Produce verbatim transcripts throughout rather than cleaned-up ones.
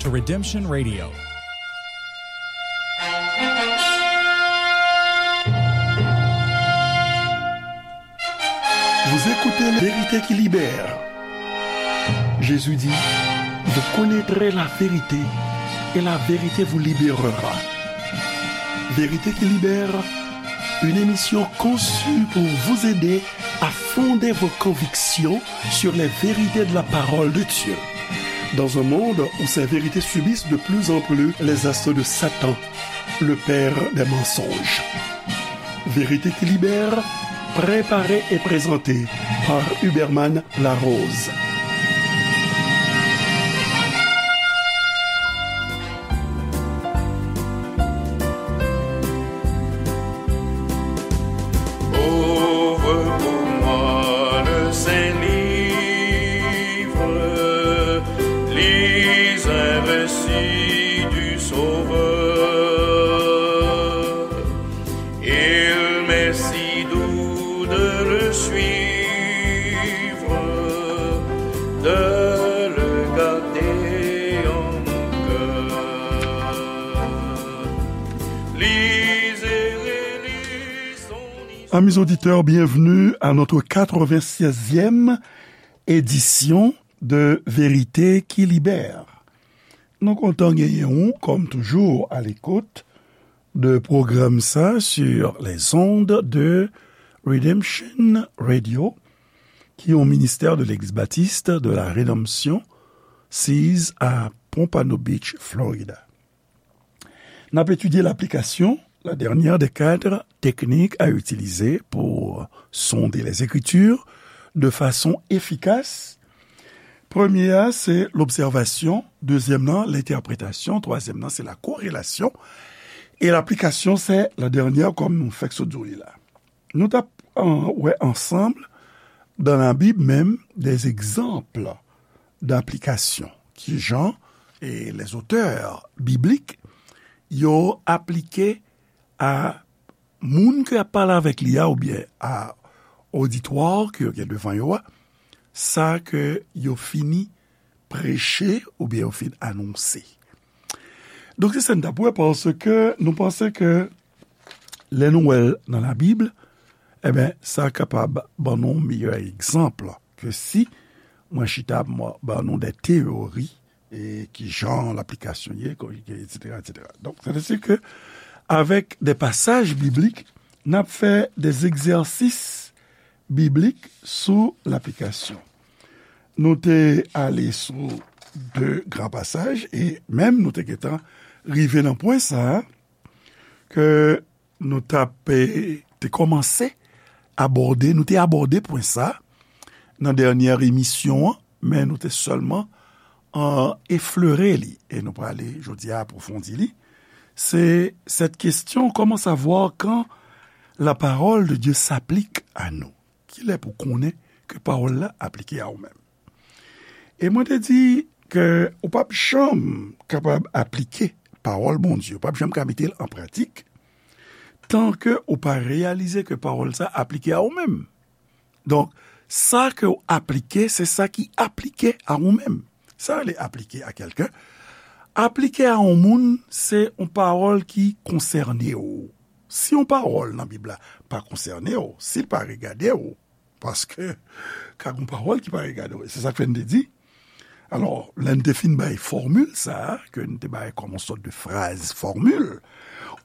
to Redemption Radio. Vous écoutez La Vérité qui libère. Jésus dit, vous connaîtrez la vérité et la vérité vous libérera. Vérité qui libère, une émission conçue pour vous aider à fonder vos convictions sur les vérités de la parole de Dieu. Dans un monde où ces vérités subissent de plus en plus les assauts de Satan, le père des mensonges. Vérité qui libère, préparée et présentée par Huberman Larose. Ouvre pour moi le Saint-Livre, lis un récit du Sauveur. Il m'est si doux de le suivre, de le garder en mon cœur. Lis et relis son histoire. Amis auditeurs, bienvenue à notre quatre-vingt-seizième édition de Vérité qui libère. Nou kontan genyen ou, comme toujours, à l'écoute de pwogram sa sur les ondes de Redemption Radio, ki yon ministè de Legliz Batis de la Redanmsyon, siz a Pompano Beach, Florida. N ap etidye laplikasyon, la dernière des quatre techniques à utiliser pour sonder les Écritures de façon efficace. Premye a, se lobsèvasyon. Dezyèm nan, lentèpretasyon. Twazyèm nan, se la korelasyon. E laplikasyon, se la dènyè, kòm nou fèk sot di w li la. Nou t ap, an, wè ansanm, dans la Bible même, des exemples d'application. Kijan, e, les auteurs bibliques, yo aplike a moun ke y ap pale avèk li a, oubyen a oditwa ke yo gen devan yo a, sa ke yo fini preche oubyen yo fin anonse. Donk, se sa n t ap wè, paske nou panse ke lè nou wè l nan Labib, enben, sa kapab ban nou yon meyè egzanp ke si mwen chita, mwen ban nou de teyori, e ki jan laplikasyon ye, ko-, etsetera, etsetera. Donk, sètadi ke avèk de pasaj biblik, n ap fè de egzèsis biblik sou laplikasyon. Nou te ale sou de gran pasaj, e menm nou te gentan rive nan pwen sa a, ke nou t ap, e, te kòmanse abòde, nou te abòde pwen sa a nan dènyè emisyon an, men nou te sèlman, an, eflere li, e nou prale jodi a apwofondi li. Se cette question, comment savoir quand la parole de Dieu s'applique à nous? Kilè pou konnen ke pawòl la aplike a ou menm? E mwen te di ke ou p ap janm kapab aplike pawòl Bondye, ou p ap janm ka mete l an pratik, tan ke ou pa reyalize ke pawòl sa aplike a ou menm. Donk, sa ke w aplike, se sa ki aplike a ou menm. Sa rele aplike a kèlken. Aplike a yon moun, se yon pawòl ki konsène w. Si yon pawòl nan Bib la pa konsène w, si l pa regade w, paske ka gen pawòl ki pa regade w, se sa k fè n te di. Alò, lè n te fin bay fòmil sa a, ke n te bay kòm yon sòt de fraz fòmil,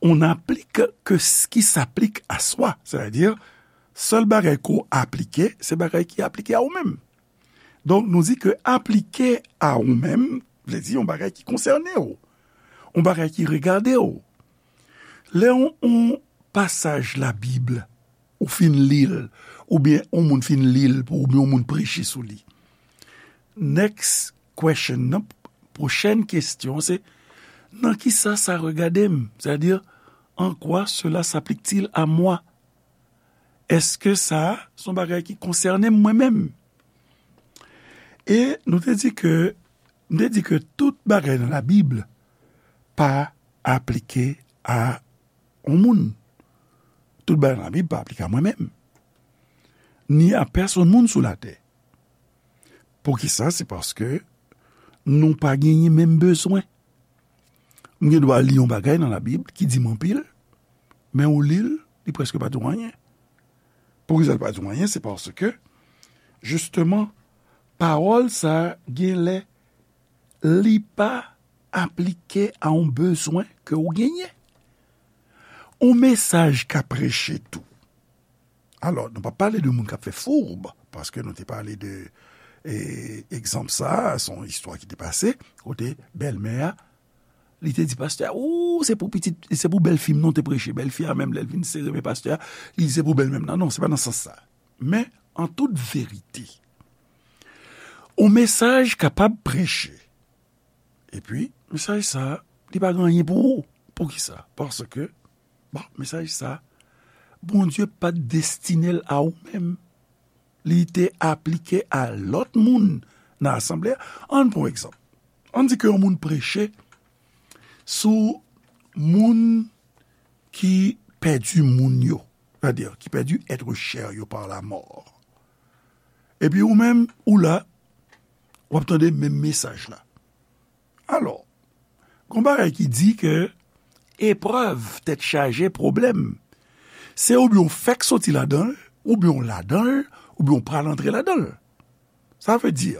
on applique que ce qui s'applique à soi. Sètadi, sèl bagay ke w aplike, se bagay ki aplike a ou menm. Donk, nou di ke aplike a ou menm, vle di yon bagay ki konsène w, yon bagay ki regade w. Lè yon, yon pasaj Labib, ou fin li l, oubyen yon moun fin li l pou ou, oubyen yon moun preche sou li. Next question nan, pwochèn kesyon, se, nan kisa sa regade m? Sètadi, en quoi cela s'applique-t-il à moi? Èske sa a se yon bagay ki konsène m mwen menm? E nou te di ke, m te di ke tout bagay nan Labib pa aplike a yon moun. Tout bagay nan Labib pa aplike a mwen menm, ni a pèsonn moun sou latè. Poukisa? Se paske nou pa genyen menm bezwen. M gen dwa li yon bagay nan Labib ki di m anpil, men ou li l, li prèske pa di w anyen. Poukisa l pa di w anyen? Se paske, jisteman, pawòl sa a gen lè li pa aplike a yon bezwen ke w genyen. Yon mesaj ka preche tou. Alò, nou p ap pale de moun k ap fè foub, paske nou te pale de, e, egzanp sa a, se yon istwa ki te pase, kote bèlmè a, li te di pastè a, ou, se pou pitit, se pou bèlfi m non te preche. Bèlfi a menm, lè l vin sere men pastè a, li di se pou bèlmè m nan. Non, se pa nan sans sa. Men, an tout verite, yon mesaj kapab preche. Epi, mesaj sa a, li pa gen anyen pou ou. Poukisa? Paske, bon, mesaj sa a, Bondye pa t destine l a ou menm. Li te aplike a lòt moun nan asanble a. Ann pran yon egzanp. Ann di ke yon moun preche sou moun ki pèdi moun yo, sètadi ki pèdi être cher yo par la mort. Epi ou menm, ou la, w ap tande menm mesaj la. Alò, gon bagay ki di ke eprèv, tèt chaje, pwoblèm, se oubyen w fèk soti ladan l, oubyen w ladan l, oubyen w pral antre ladan l. Sa vle di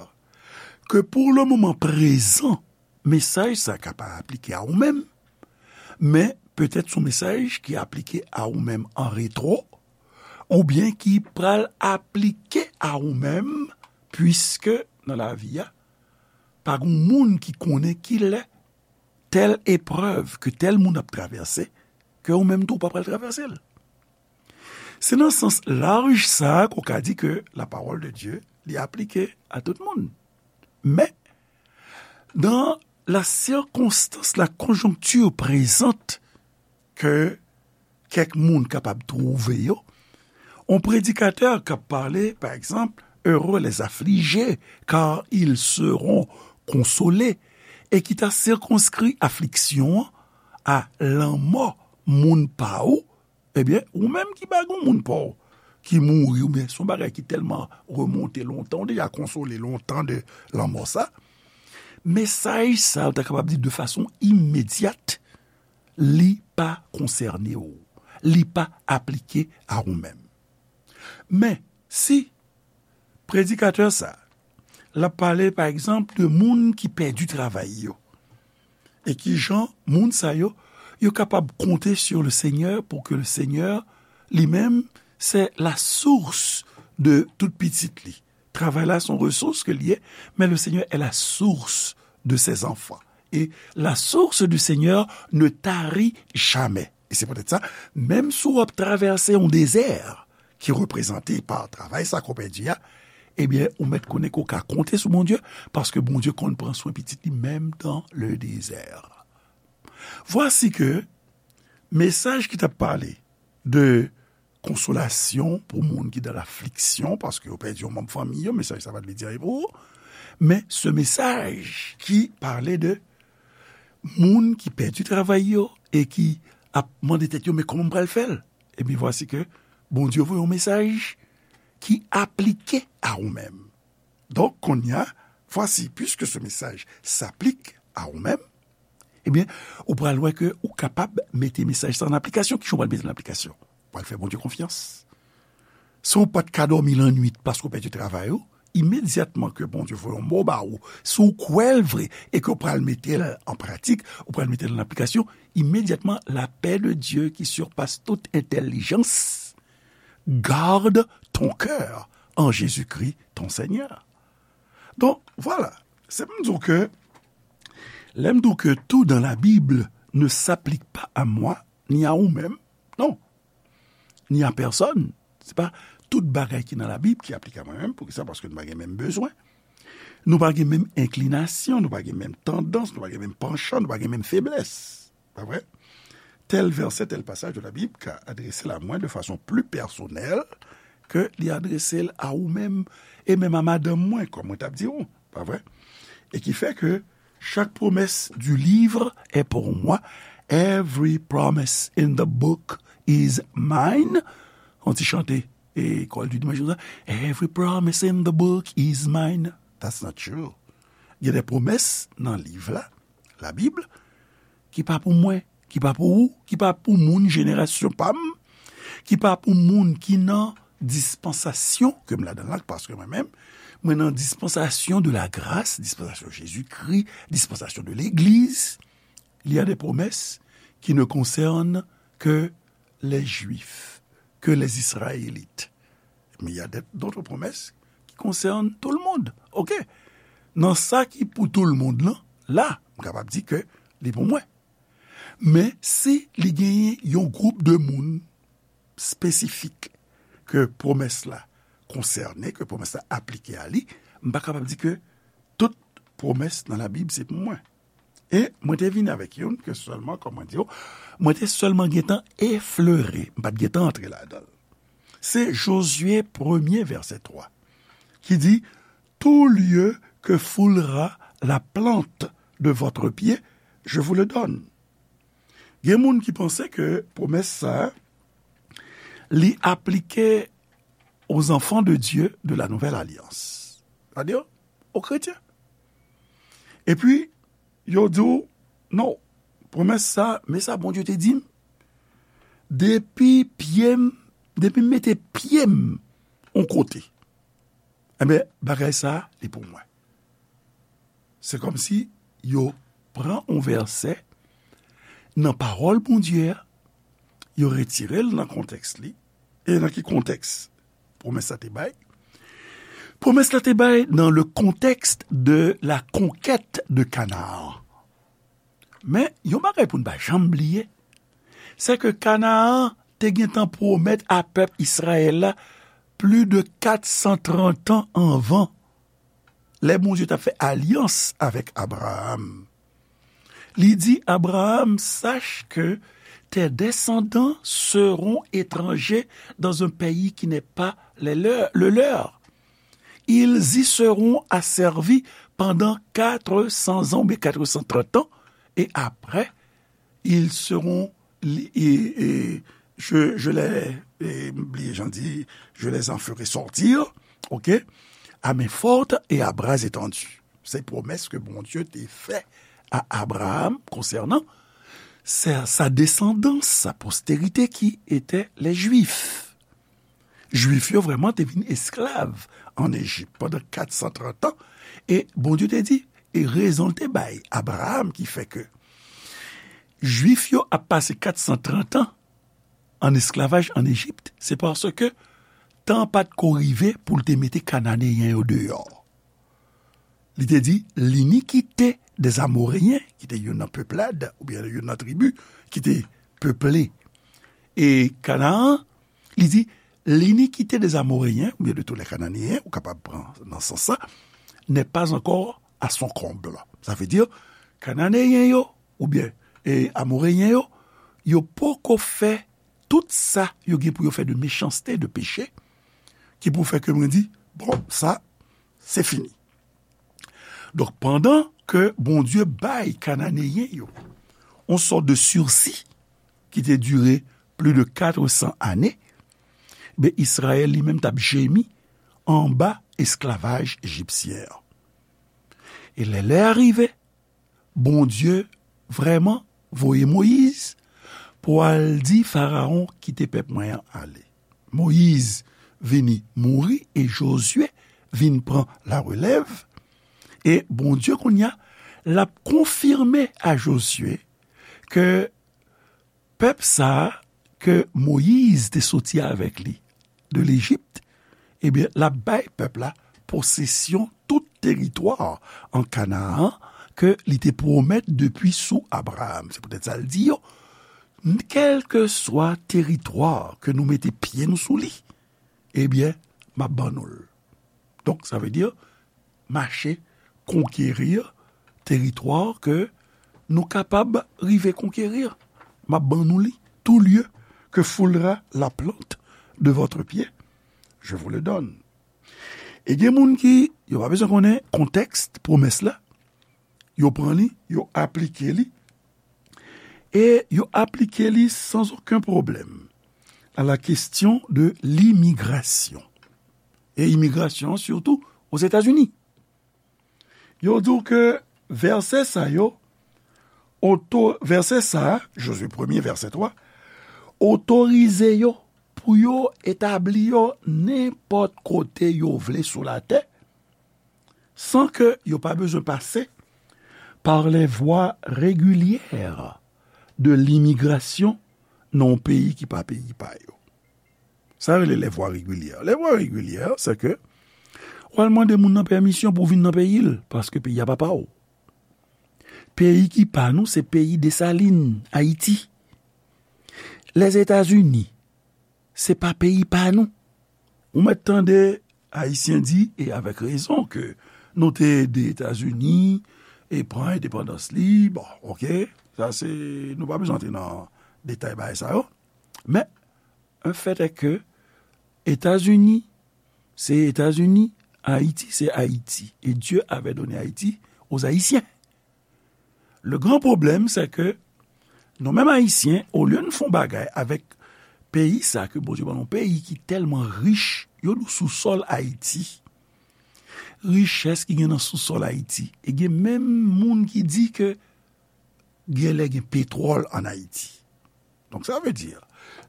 ke pour le moment présent, mesaj sa ka pa aplike a ou menm, men petèt se yon mesaj ki aplike a ou menm an retwo, oubyen ki pral aplike a ou menm, piske nan lavi a, pa gen moun ki konnen ki lè tèl eprèv ke tèl moun ap travèse, ke ou menm tou ou pa pral travèse l. Se nan sans laj sa a ke w ka di ke la parole de Dieu, li aplike a tout moun. Men, dans la circonstance, la conjoncture présente ke kèk moun kapab twouve yo, yon predikatè k ap pale, pa egzanp, heureux les affligés, car ils seront consolés, e ki ta sikonskri afliksyon an a lanmò moun pa ou, ebyen, ou menm ki pa gen moun pa w ki mouri, oubyen se yon bagay ki tèlman remonte lontan, ou deja konsole lontan de lanmò sa, mesaj sa, ou ta kapab di de fason imedyat, li pa konsène w. Li pa aplike a ou menm. Men, si predikatè sa, l ap pale, pa egzanp, de moun ki pèdi travay yo, e ki jan moun sa yo, yo kapab konte sur le Seigneur pour que le Seigneur, li menm, c'est la source de tout pitit li. Travay la, se yon resous ke l ye, men le Seigneur est la source de ses enfants. Et la source du Seigneur ne tarit jamais. E se poutèt sa, menm si w ap travèse yon dezè ki reprezante pa travay sa ke w pèdi a, ebyen, ou mèt konnen ke w ka konte sou Bondye, paske Bondye konn pran swen pitit li menm dans le désert. Vwasi ke mesaj ki t ap pale de konsolasyon pou moun ki dan lafliksyon, paske yo pèdi yon manm fanmi yo, mesaj sa pa t vle di anyen pou ou. Men se mesaj ki pale de moun ki pèdi travay yo e ki ap mande tèt yo, men kòman m pral fè l? Ebyen, vwasi ke Bondye voye yon mesaj ki aplike a ou menm. Donk, kounye a, vwasi, puisque ce message s'applique à ou menm, ebyen, ou pral wè ke ou kapab mete mesaj sa an aplikasyon. Kijan w pral mete l an aplikasyon? Ou pral fè Bondye konfyans. Si w pa t ka dòmi lannwit paske w pèdi travay ou, imedyatman ke Bondye voye yon mo ba ou, si w kwè l vre e ke w pral mete l an pratik, ou pral mete l an aplikasyon, imedyatman, la paix de Dieu qui surpasse toute intelligence, garde ton cœur en Jésus-Christ, ton Seigneur. Donk, vwala. Se pou m di w ke, lè m di w ke tout dans la Bible ne s'applique pas à moi, ni à ou menm, non, ni à personne. Se pa tout bagay ki nan Labib ki aplike a mwen menm. Poukisa? Paske nou pa gen menm bezwen. Nou pa gen menm enklinasyon, nou pa gen menm tandans, nou pa gen menm panchan, nou pa gen menm feblès. Pa vre? Tèl vèsè, tèl pasaj de la Bib ka adrese l a mwen de fason pli pèsonèl ke li adrese l a ou menm, e menm a madanm mwen, kòm mwen t ap di w, pa vre? E ki fè ke chaque promesse du livre est pour moi. Every promise in the book is mine. On ti chante, e, kòl di dimanch konsa. Every promise in the book is mine. That's not true. Gen de pwomès nan liv la, Labib, ki pa pou mwen, ki pa pou ou, ki pa pou moun jenerasyon pa m, ki pa pou moun ki nan dispansasyon ke m ladan la, paske mwen menm, mwen nan dispansasyon de la grâce, dispansasyon Jezikri, dispansasyon de legliz. Il y a des promesses qui ne concernent que les Juifs, que les Israélites. Mais il y a d'autres promesses qui concernent tout le monde. OK. Nan sa ki pou tout le monde lan, la, m kapab di ke li pou mwen. Men si li genyen yon gwoup de moun espesifik ke pwomès la konsène, ke pwomès la aplike a li, m pa kapab di ke tout pwomès nan Labib se pou mwen. E mwen te vin avèk youn ke sèlman, kòman di yo, mwen te sèlman gentan eflere, m pa t gentan antre ladan l. Se Jozye premye vèsè twa ki di, tout lieu que foulera la plante de votre pied, je vous le donne. Gen moun ki panse ke pwomès sa a, li aplike aux enfants de Dieu de la nouvelle alliance. Sa di yo, o kretyen. Epi, yo di w, non, pwomès sa, men sa Bondye te di m, depi pye m, depi m mete pye m yon kote, enben, bagay sa, li pou mwen. Se kòmsi yo pran yon vèsè nan pawòl Bondye a, yo retire l nan kontèks li. E nan ki kontèks pwomès la te bay? Pwomès la te bay dans le contexte de la conquête de Canaan. Men, yon bagay pou n pa janm bliye, se ke Kanaan te gentan pwomèt a pèp Izrayèl la plis de kat san trant an anvan, lè Bondye t ap fè alyans avèk Abraram. Li di Abraram, sache que tes descendants seront étrangers dans un pays qui n'est pas le leur, le leur. Ils y seront asservis pendant quatre cents ans, oubyen kat san trant an, et après, ils seront, li-, et, et je, je les, et, m bliye jan di, je les en ferai sortir, OK, à main forte et à bras étendus. Se pwomès ke Bondye te fè a Abraram konsènan sa, sa desandans, sa postérité qui était les Juifs. Jwif yo vrèman te vin esklav ann Ejip pandan kat san trant an. E Bondye te di, e rezon l te bay Abraram ki fè ke Jwif yo ap pase kat san trant an ann esklavaj ann Ejip, se paske tan pa t ko rive pou l te mete Kananeyen yo deyò. Li te di, l'iniquité des Amoréens, ki te youn nan peplad, oubyen youn nan tribi, ki te peple e Kanaan, li di, l'iniquité des Amoréens, oubyen de tous les Cananéens, ou kapab pran nan sans sa, n'est pas encore à son comble. Sa vle di, Kananeyen yo, oubyen, e, Amoreyen yo, yo poko fè tout sa yo gen pou yo fè de méchanceté, de péché, ki pou fè ke mwen di, bon, sa, se fini. Donk, pandan ke Bondye bay Kananeyen yo yon sòt de sirsi ki te dire plis de kat san ane, ben, Izrayèl li menm t ap jemi anba esklavaj ejipsyen an. E lè lè a rive, Bondye vrèman voye Moyiz pou al di Farawon, kite pèp mwen an ale. Moyiz vini mouri e Jozye vin pran larelèv. E Bondye kounye a, l ap konfime a Jozye ke pèp sa a ke Moyiz te soti avèk li de Lejip, ebyen, l ap bay pèp la posesyon tout teritwa an Kanaan ke li te pwomèt depi sou Abraram. Se poutèt sa l di yo, kèlkeswa teritwa ke nou mete pye nou sou li, ebyen, m ap ban nou l. Donk, sa vle di, mache konkeri teritwa ke nou kapab rive konkeri. M ap ban nou li, tout lieu que foulera la plante de votre pied, je vous le donne. E gen moun ki, yo pa bezwen konnen kontèks pwomès la, yo pran li, yo aplike li, e yo aplike li sans aucun problème à la question de l'immigration. E imigrasyon an, sitou Ozetazini. Yo di w ke vèsè sa yo, oto, vèsè sa, Jozye premye, vèsè twa, otorize yo pou yo etabli yo nenpòt kote yo vle sou latè, san ke yo pa bezwen pase par les voies régulières de l'immigration nan yon peyi ki pa peyi pa yo. Sa yo rele les voies régulières. Les voies régulières, se ke w al mande moun nan pèmisyon pou vin nan peyi l, paske peyi a pa pa w. Peyi ki pa nou, se peyi Desalin, Ayiti. Lèzetazini, se pa peyi pa nou. Ou mèt tande Ayisyen di, e avèk rezon, ke nou te ede Etazini e pran endepandans li. Bon, oke, sa se, nou pa bezwen antre nan detay bagay sa yo. Men, un fait est que Etazini, se Etazini, Ayiti, se Ayiti. E Dieu avait donné Haïti aux Haïtiens. Le gran pwoblèm, se ke nou menm Ayisyen, olye n fè yon bagay avèk peyi sa ke Bondye ban nou, peyi ki tèlman rich, yo di w sousòl Ayiti. Richès ki gen nan sousòl Ayiti. E gen menm moun ki di ke genlè gen petwòl ann Ayiti. Donk, sa vle di,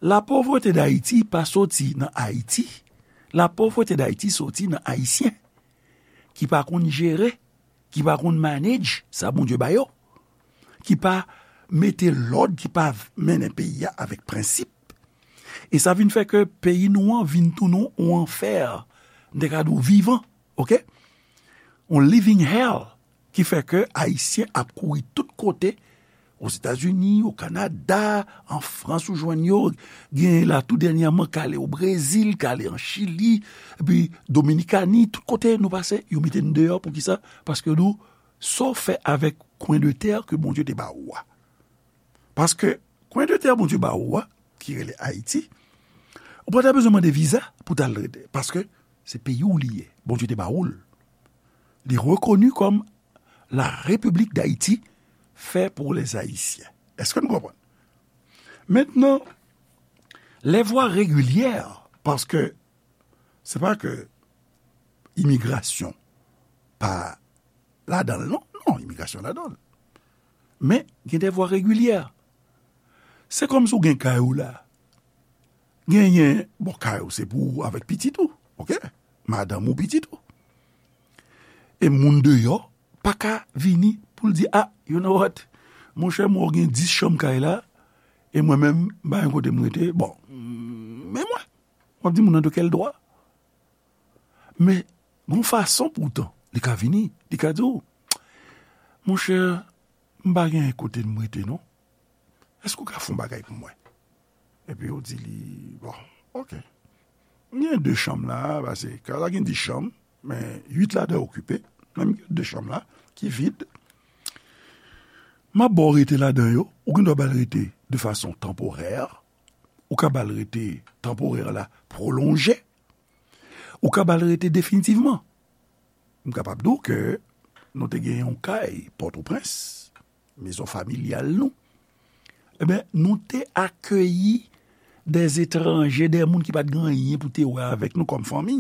la pauvreté d'Haïti pa soti nan Ayiti. La pauvreté d'Haïti soti nan Ayisyen ki pa konn jere, ki pa konn manage sa Bondye ba yo, ki pa mete lòd, ki pa mennen peyi a avèk prensip. E sa vin fè ke peyi nou an vin tounen yon anfè, m te ka di w vivan, oke? Yon living hell, ki fè ke Ayisyen ap kouri tout kote, Ozetazini, o Kanada, an Frans ou jwenn yo, gen la tou dènyèman k ale o Brezil, k ale an Chili, epi Dominikani, tout kote nou pase, yo mete n deyò. Poukisa? Paske nou, sa w fè avèk kwen de tè ke Bondye te ba ou a? Paske kwen de tè Bondye ba ou a, ki rele Ayiti, ou pa ta bezwen mande viza pou t al rete, paske se peyi w li ye, Bondye te ba ou l. Li rekoni kòm la République d'Haïti fait pour les Haïtiens. Èske nou konprann? Mentnan, les voies régulières, paske se pa ke imigrasyon pa ladan l, non, non, imigrasyon ladan l. Men, gen des voies régulières. Se kòmsi w gen kay ou la. Genyen, bon, kay ou se pou ou avèk pitit ou, oke? Madanm ou, pitit ou. E moun deyò pa ka vini pou l di, a, you know what? Monchè, mwen gen dis chanm kay la, e mwen menm, m pa gen kote m rete. Bon, men mwen, w ap di moun nan de kèl dwa? Men, gon fason poutan, li ka vini, li ka di w, monchè, m pa gen kote m rete non. Èske w ka fè yon bagay pou mwen? Epi yo di li, bon, oke. M gen de chanm la, paske kay la gen dis chanm, men uit ladan yo okipe, men m gen de chanm la ki vid. M ap ba w rete ladan yo, ou gen dwa ba l rete de fason tanporè, ou ka ba l rete tanporè la pwolonje, ou ka ba l rete definitivman. M kapab di w ke nou te gen yon kay Pòtoprens, mezon familyal nou. Ebyen, nou te akeyi dè etranje, dè moun ki pa t gen anyen pou te wè avèk nou kòm fanmi.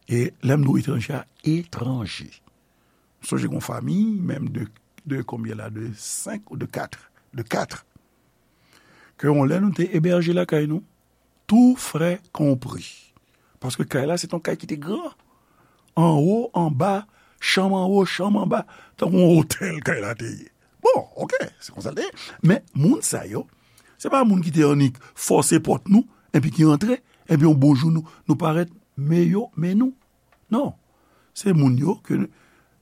E lè m di w etranje a, etranje. M sonje gon fanmi, menm de, de konbyen la, de senk ou de kat, de kat. Ke yon lè nou te ebèje lakay nou, tout frais compris. Paske kay la, se t on kay ki te gran. Anwo, anba, chanm anwo, chanm anba, tankou yon otèl kay la te ye. Bon, oke, se konsa l te ye. Men, moun sa yo, se pa moun ki te annik fòse pòt nou, epi ki antre, epi yon bon jou nou, nou parèt, men yo, men nou. Non. Se moun yo ke n-,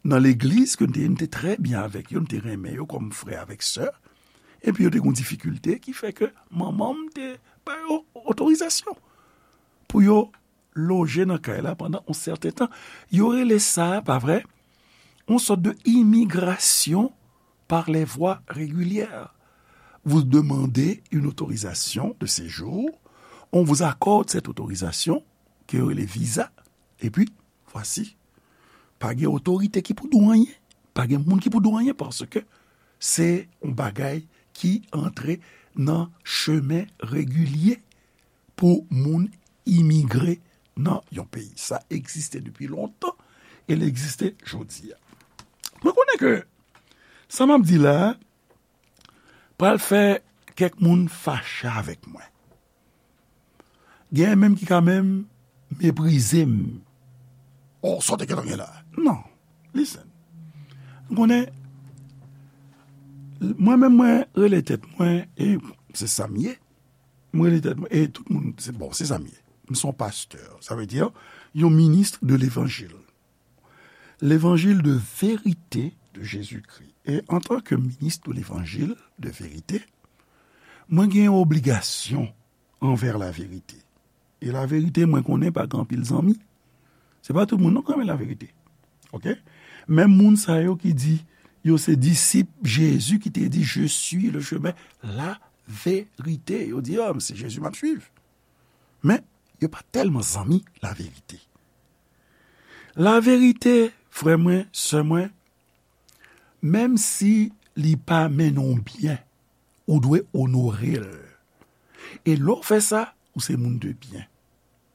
nan legliz ke n te ye, n te trè byen avèk yo, n te renmen yo kòm frè avèk sè. Epi yo te gen yon difikilte ki fè ke manman m te ba yo otorizasyon pou yo loje nan kay la pandan yon sèten tan. Yo rele sa, pa vre, yon sòt de imigrasyon par les voies régulières. Vous demandez une autorisation de séjour, on vous accorde cette autorisation, ke yo rele viza, epi, vwasi, pa gen otorite ki pou di w anyen, pa gen moun ki pou di w anyen, paske se yon bagay ki antre nan chemen regilye pou moun imigre nan yon peyi. Sa egziste depi lontan, e l egziste jodi a. Mwen konnen ke sa m ap di la a pral fè kèk moun fache avèk mwen. Gen menm ki ka menm meprize m. Oh, sa w te gentan gen la. Non. Listen. M konnen, mwen menm mwen rele tèt mwen, e se sa m ye. Mwen rele tèt mwen, e tout moun, se bon, se sa m ye. M se yon pastè. Sa vle di, yon ministre de l'évangile. L'évangile de vérité de Jésus-Christ. E antanke minis de levanjil de verite, mwen gen yon obligasyon anvè laverite. E laverite, mwen konnen pa gen anpil zanmi. Se pa tout moun non ki renmen laverite. Oke? Menm moun sa yo ki di yo se disip Jezi ki te di, "Je suis le chemin, la vérité." Yo di, "Ah, se Jezi m ap swiv." Men, yo pa tèlman zanmi laverite. Laverite, frè mwen, sè mwen, menm si li pa mennen w byen, ou dwe onore l. E lè w fè sa, ou se moun de byen.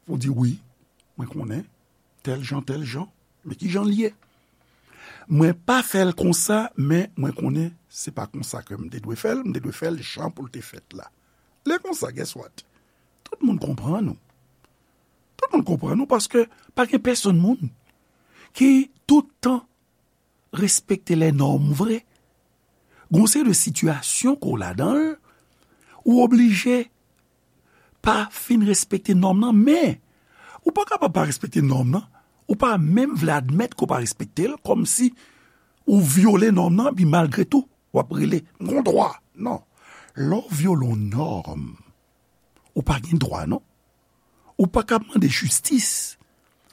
Ou di, "Wi, mwen konnen, tèl jan, tèl jan, men ki jan l ye? Mwen pa fè l konsa, men mwen konnen se pa konsa ke m te dwe fè l, m te dwe fè l jan pou l te fèt la." Lè konsa, guess what? Tout moun konprann ou. Tout moun konprann ou paske pa gen pèsonn moun ki tout tan respekte lè nòm vre. Gon seri de sitiyasyon ke w ladan l, ou oblije pa fin respekte nòm nan, men ou pa kapab pa respekte nòm nan, ou pa menm vle admèt ke w pa respekte l, kòmsi ou vyole nòm nan, epi malgre tou, w ap rele, "M gon dwa." Non. Lè w vyole yon nòm, ou pa gen dwa, non. Ou pa ka mande jistis,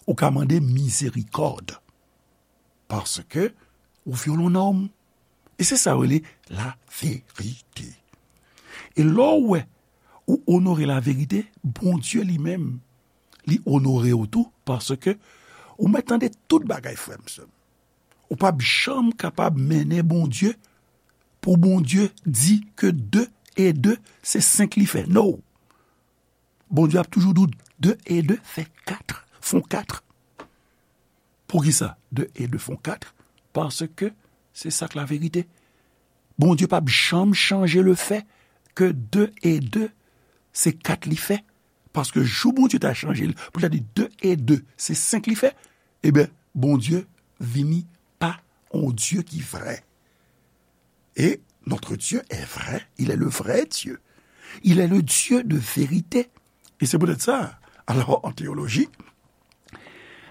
ou ka mande mizerikòd. Paske ou vyole yon nòm. E se sa yo rele laverite. E lè w wè ou onore laverite, Bondye li menm, li onore w tou, paske ou mèt tande tout bagay, frè m, sè m. Ou p ap janm kapab mennen Bondye, pou Bondye di ke de e de, se senk li fè. No! Bondye ap toujou di w de e de fè kat, fon kat. Poukisa de e de fon kat? Paske se sa k laverite. Bondye p ap janm chanje lefè ke de e de se kat li fè. Paske jou Bondye ta chanje l, pou l ta di de e de se senk li fè, ebyen, Bondye vini pa yon Dye ki vrè. Et notre Dieu est vrai, il est le vrai Dieu. Il est le Dieu de vérité. E se poutèt sa, alò, an teyoloji,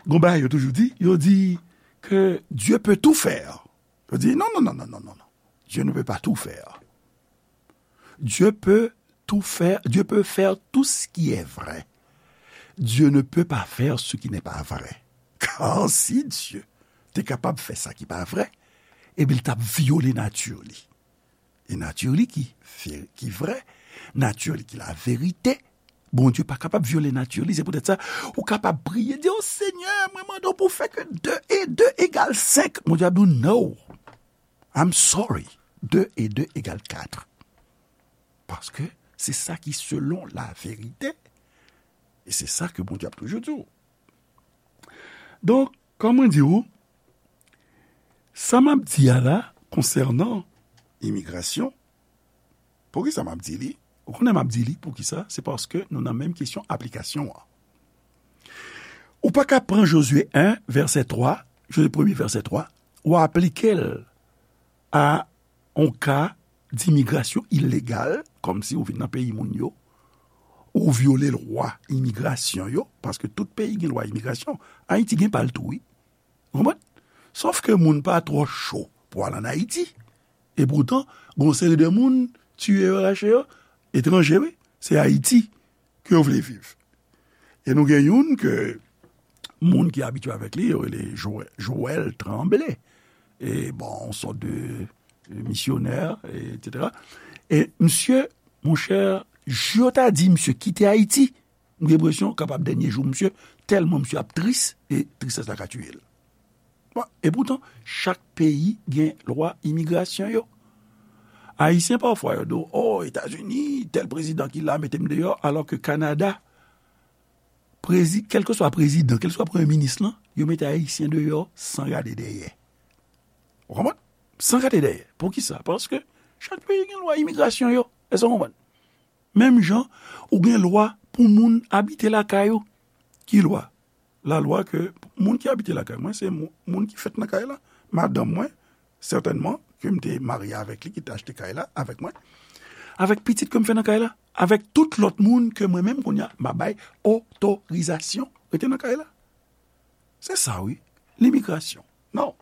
gon bagay yo toujou di, yo di ke Dieu peut tout faire. Yo di, non, non, non, non, non, non, non. Dieu ne peut pas tout faire. Dieu peut tout faire, Dieu peut faire tout ce qui est vrai. Dieu ne peut pas faire ce qui n'est pas vrai. Kar si Dye te kapab fè sa ki pa vrè, ebyen, li t ap vyole nati li. E nati li ki ve-, ki vrè, nati li ki laverite. Bondye pa kapab vyole nati li. Se poutèt sa, ou kapab priye, di, "O Senyè, mwen mande w pou w fè ke de e de egal senk." Bondye ap di w, "No, I'm sorry, de e de egal kat." Paske se sa ki selon laverite. E se sa ke Bondye ap toujou di w. Donk, kòm mwen di w, sa m ap di a la, konsènan imigrasyon, poukisa m ap di li? Ou konnen m ap di li, poukisa? Se paske nou nan menm kesyon aplikasyon an. Ou pa ka pran Jozye en, vèsè twa, Jozye premye, vèsè twa, ou aplike l a yon ka dimigrasyon ilegal, kòmsi ou vin nan peyi moun yo, ou vyole lwa imigrasyon yo, paske tout peyi gen lwa imigrasyon. Ayiti gen pa l tou, wi. Ou konprann? Sòf ke moun pa twò cho pou al ann Ayiti. E poutan, gon seri de moun, tiye yo, rache yo, etranje, wi. Se Ayiti ke yo vle viv. E nou gen youn ke moun ki abitye avèk li, yo rele Joël, Joël Tremblay. E bon, yon sòt de misyonè, etsetera. E misye, monchè, jou yo ta di misye kite Ayiti, m gen enpresyon kapab dènye jou misye, tèlman misye ap tris, e tristès la ka tiye l. Bon, e poutan, chak peyi gen lwa imigrasyon yo. Ayisyen pafwa yo di w, "O, Etazini, tèl prezidan ki la mete m deyò," alò ke Kanada, prezi, kèlkeswa prezidan, kèlkeswa premye minis lan, yo mete Ayisyen deyò san gade dèyè. Ou konprann? San gade dèyè. Poukisa? Paske chak peyi gen lwa imigrasyon yo. Èske w konprann? Menm jan, ou gen lwa pou moun abite lakay ou. Ki lwa? Lalwa ke moun ki abite lakay mwen, se mou-, moun ki fèt nan kay la. Madanm mwen, sètènman, ke m te marye avèk li, ki te achte kay la avèk mwen. Avèk pitit ke m fè nan kay la. Avèk tout lòt moun ke mwen menm, kounye a, m a bay otorizasyon rete nan kay la. Se sa, wi. Limigrasyon. Non.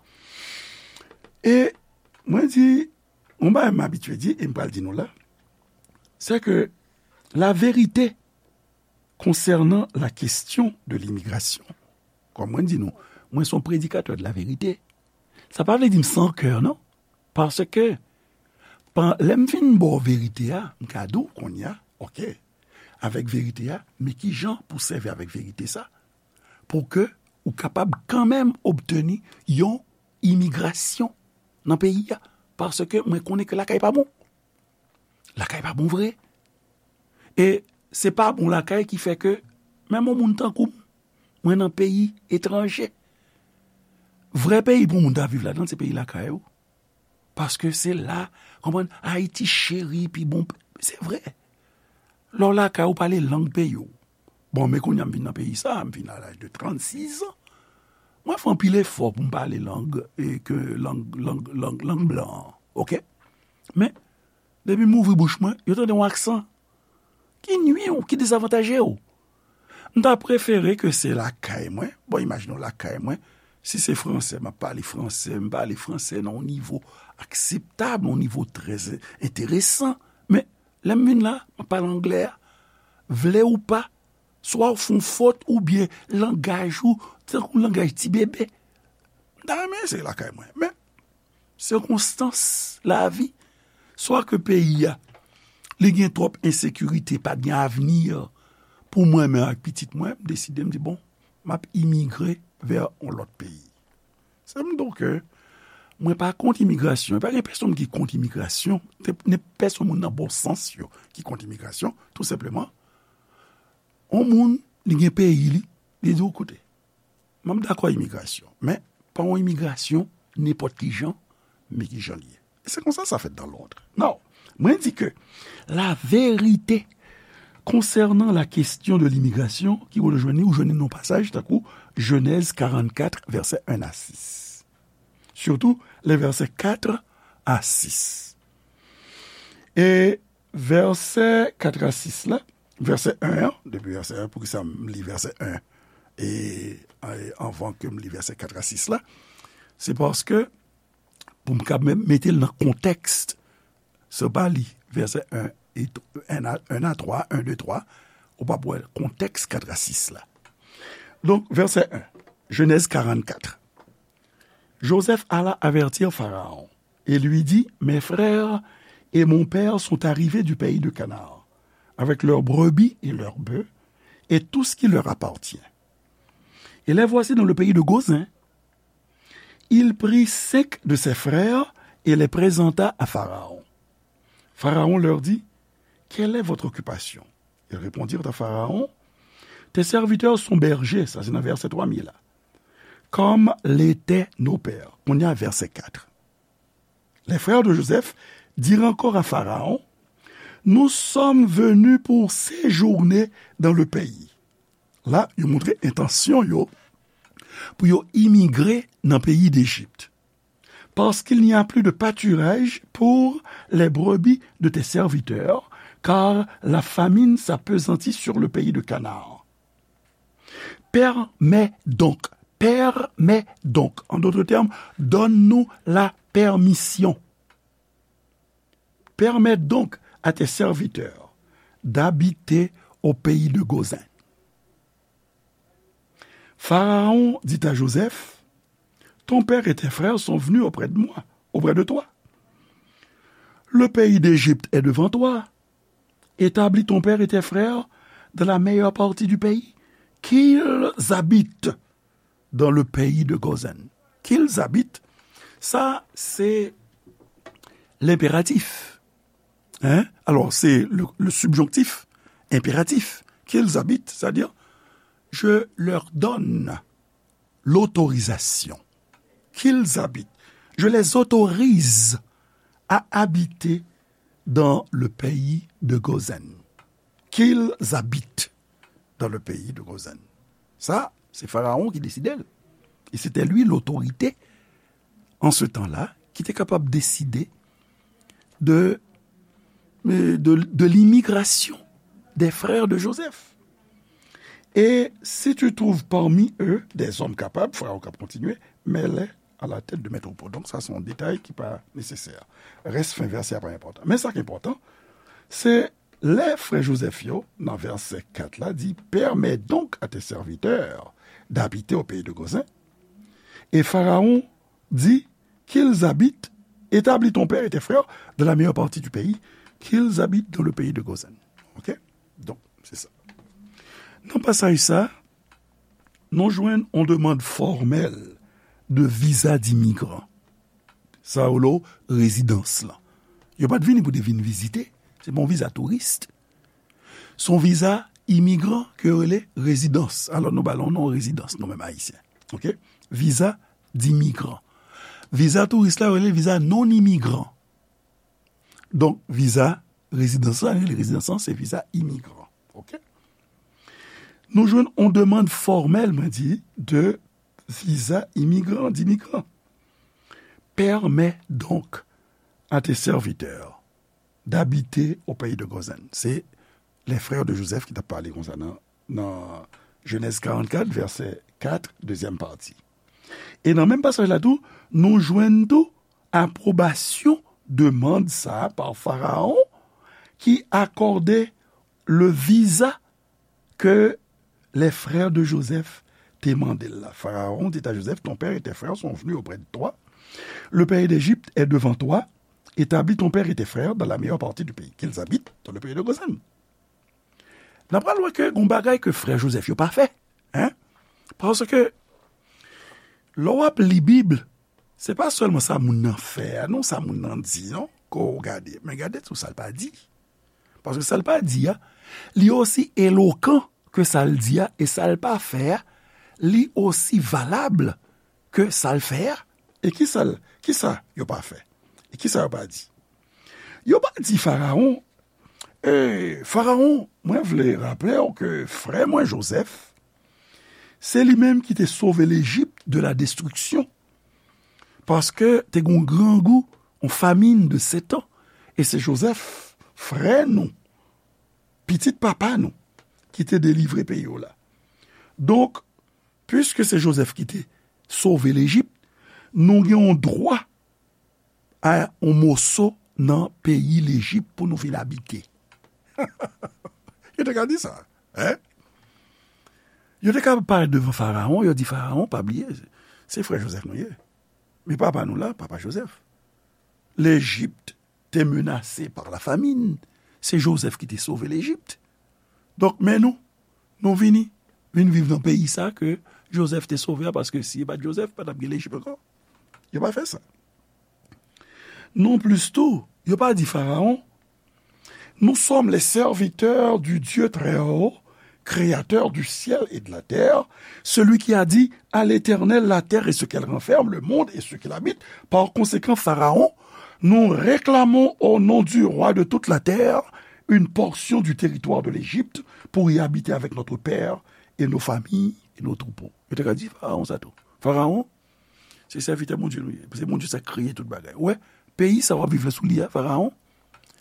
E mwen di, yon bagay m abitye di, e m pral di nou la, c'est que la vérité concernant la question de l'immigration, kòm mwen di nou, mwen se yon predikatè de la vérité. Sa pa vle di m san kè, non. Paske, pan, lè m fin ba w verite a, m ka di w kounye a, oke, avèk verite a, men ki jan pou sèvi avèk verite sa, pou ke ou kapab kanmenm obteni yon imigrasyon nan peyi a. Paske mwen konnen ke lakay pa bon. Lakay pa bon vre. E se pa bon lakay ki fè ke menm yon moun tankou m, mwen nan peyi etranje. Vrè peyi pou moun ta viv ladan, se peyi lakay ou. Paske se la, konprann, Ayiti cheri, pi bon, se vre. Lè w lakay ou pale lang peyi w. Bon, men kounye a m vin nan peyi sa, m vin a laj de trannsis an. Mwen fè anpil efò pou m pale lang, e ke lang, lang, lang, lang blan an, oke? Men, depi m ouvri bouch mwen, yo tande yon aksan ki nwi w, ki dezavantaje w. M ta prefere ke se lakay mwen, bon, imajine w lakay mwen, si se fransè, m ap pale fransè, m pale fransè nan yon nivo akseptab, yon nivo trè enteresan. Men, lè m vin la, m ap pale anglè a. Vle ou pa, swa w fè yon fot oubyen langaj ou, tankou langaj ti bebe. M ta renmen se lakay mwen. Men, sikonstans lavi, swa ke peyi a, li gen twòp ensekirite, pa t gen avni pou mwen menm ak pitit mwen, m deside, m di, bon, m ap imigre vè yon lòt peyi. Se m di w ke mwen pa kont imigrasyon. Pa gen pèsonn ki kont imigrasyon. Te, ni pèsonn moun nan bon sans yo ki kont imigrasyon. Tou senpleman, yon moun, li gen peyi li, li di w, koute, m ap dakò imigrasyon, men pa yon imigrasyon nenpòt ki jan, men ki jan li ye. E se konsa sa fèt dans l'ordre. Non, mwen di ke la vérité concernant la question de l'immigration, ki ou jwenn li, ou jwenn li nan pasaj tankou Jenèz karannkat, vèsè en a sis. Surtout les versets quatre à six. E vèsè kat a sis la, vèsè en an, depi vèsè en, poukisa m li vèsè en e, e anvan ke m li vèsè kat a sis la, se paske pou m ka mete l nan kontèks, se pa li vèsè en e en a, en a twa, en de twa, ou p ap wè kontèks kat a sis la. Donk, vèsè en, Jenèz karannkat. Joseph alla avertir Pharaon et lui dit, mes frères et mon père sont arrivés du pays de Canaan, avec leurs brebis et leurs bœufs, et tout ce qui leur appartient. Et les voici dans le pays de Gozin. Il prit cinq de ses frères et les présenta à Pharaon. Pharaon leur dit, quelle est votre occupation? Ils répondirent à Pharaon, tes serviteurs sont bergers, sa se nan vèsè twa mil la, comme l'étaient nos pères. Kounye a vèsè kat. Les frères de Joseph dirent encore à Pharaon, nous sommes venus pour séjourner dans le pays. La, yo montre entansyon yo pou yo imigre nan peyi Dejip. Parce qu'il n'y a plus de pâturage pour les brebis de tes serviteurs, car la famine s'appesantit sur le pays de Canaan. Permets donc, permets donc, en d'autres termes, donne-nous la permission. Permets donc à tes serviteurs d'habiter au pays de Gozin. Pharaon dit à Joseph, ton père et tes frères sont venus auprès de moi, auprès de toi. Le pays d'Égypte est devant toi. Établis ton père et tes frères dans la meilleure partie du pays, qu'ils habitent dans le pays de Gozin. Qu'ils habitent, sa, se lenperatif. Hein? Alò, se le, le subjonctif, enperatif. Qu'ils habitent, c'est-à-dire, Je leur donne l'autorisation qu'ils habitent. Je les autorise à habiter dans le pays de Gozen. Qu'ils habitent dans le pays de Gozen. Sa, se Farawon ki deside l. E se te li lotorite an se tan la ki te kapab deside de, de, de limigrasyon des frères de Joseph. Et si tu trouves parmi eux des hommes capables, Farawon k ap kontinye, mets-les à la tête de métropole. Donk, sa se yon detay ki pa nesesè. Rès fen vèsè a pa enpòtan. Men sa ki enpòtan, se lè frè Jozèf yo, nan vèsè kat la, di, permets donc à tes serviteurs d'habiter au pays de Gozan. Et Pharaon dit qu'ils habitent, établis ton père et tes frères dans la meilleure partie du pays, qu'ils habitent dans le pays de Gozan. Ok? Donk, se sa. Nan pasaj sa, nou jwenn yon demann fòmèl de viza dimigran. Sa yo rele rezidans lan. Yo pa t vini pou te vin vizite. Se pa yon viza touris. Se yon viza imigran ke yo rele rezidans. Alò, nou ba l yon non rezidans, nou menm Ayisyen. Ok? Viza dimigran. Viza touris la, yo rele viza non imigran. Donk, viza rezidans la, rele rezidans lan, se viza imigran. Ok? Nou jwenn yon demann fòmèl, mwen di, de viza imigran, dimigran. Permets donc à tes serviteurs d'habiter au pays de Gozan. Se les frères de Joseph ki t ap pale konsa nan, nan Jenèz karannkat, vèsè kat, dezyèm pati. E nan menm pasaj la tou, nou jwenn tou apwobasyon demann sa a pa Farawon ki akòde le viza que les frères de Joseph te mande l la. Pharaon dit à Joseph, ton père et tes frères sont venus auprès de toi. Le pays d'Égypte est devant toi. Établis ton père et tes frères dans la meilleure partie du pays, qu'ils habitent dans le pays de Gozan. N ap pral wè ke gon bagay ke frè Jozèf yo pa fè. Hein? Paske lè w ap li Bib, se pa sèlman sa moun nan fè a, non, sa moun nan di, non, ke w gade. Men gade tou sa l pa di. Paske sa l pa di a, li osi elokan ke sa l di a, e sa l pa fè a, li osi valab ke sa l fè a. E ki sa l, ki sa yo pa fè? E ki sa yo pa di? Yo pa di Farawon, e, Farawon, mwen vle raple w ke frè mwen Jozèf, se li menm ki te sove Lejip de la destriksyon. Paske te gen yon grangou, yon famin de sèt an. E se Jozèf, frè nou, pitit papa nou, ki te delivre peyi w la. Donk, piske se Jozèf ki te sove Lejip, nou gen yon dwa a yon moso nan peyi Lejip pou nou vin abite. Yo te ka di sa, hein? Yo te ka parèt devan Farawon, yo di, Farawon, pa bliye, se frè Jozèf nou ye. Men papa nou la, papa Jozèf. Lejip te menase pa la famin. Se Jozèf ki te sove Lejip. Donk, men nou, nou vini, vin viv nan peyi sa ke Jozèf te sove a, paske si e pa t Jozèf, pa t ap gen Lejip ankò. Yo pa fè sa. Non plis tou, yo pa di Farawon, nous sommes les serviteurs du Dieu très haut, créateur du ciel et de la terre, celui qui a dit, à l'Éternel, la terre et ce qu'elle renferme, le monde et ceux qui l'habitent. Par conséquent, Pharaon, nous réclamons au nom du roi de toute la terre une portion du territoire de l'Égypte pour y habiter avec notre père et nos familles et nos troupeaux. Yo te ka di Farawon sa tou. Farawon, se sèvitè Bondye nou ye. Se Bondye sa k kreye tout bagay. Ou wè, peyi sa w ap viv la sou li a, Farawon,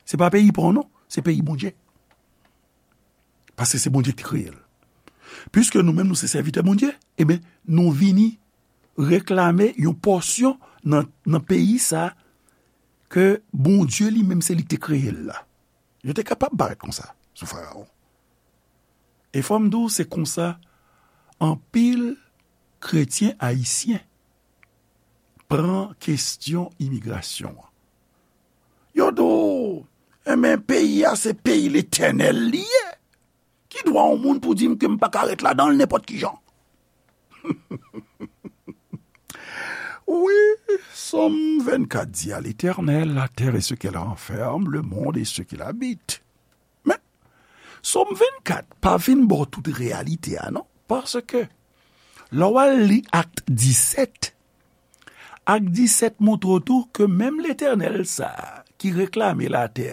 se pa peyi pa w non, se peyi Bondye. Paske se Bondye ki te kreye l. Piske nou menm nou se sèvitè Bondye, ebyen, nou vini reklame yon pòsyon nan, nan peyi sa ke Bondye li menm se li ki te kreye l la. Yo te kapab parèt konsa sou Farawon. E fò m di w, se konsa anpil kretyen ayisyen pran kesyon imigrasyon an. Yo di w, enben, peyi a se peyi Letènèl li ye. Ki dwa yon moun pou di m ke m pa ka ret ladan l nenpòt ki jan? Wi, Sòm vennkat di, à l'Éternel, la terre et ce qu'elle renferme, le monde et ceux qui l'habitent. Men, Sòm vennkat pa vin ba w tout reyalite a, non. Paske, lè w al li Ak disèt, Ak disèt montre w tou ke menm Letènèl sa a ki reklame latè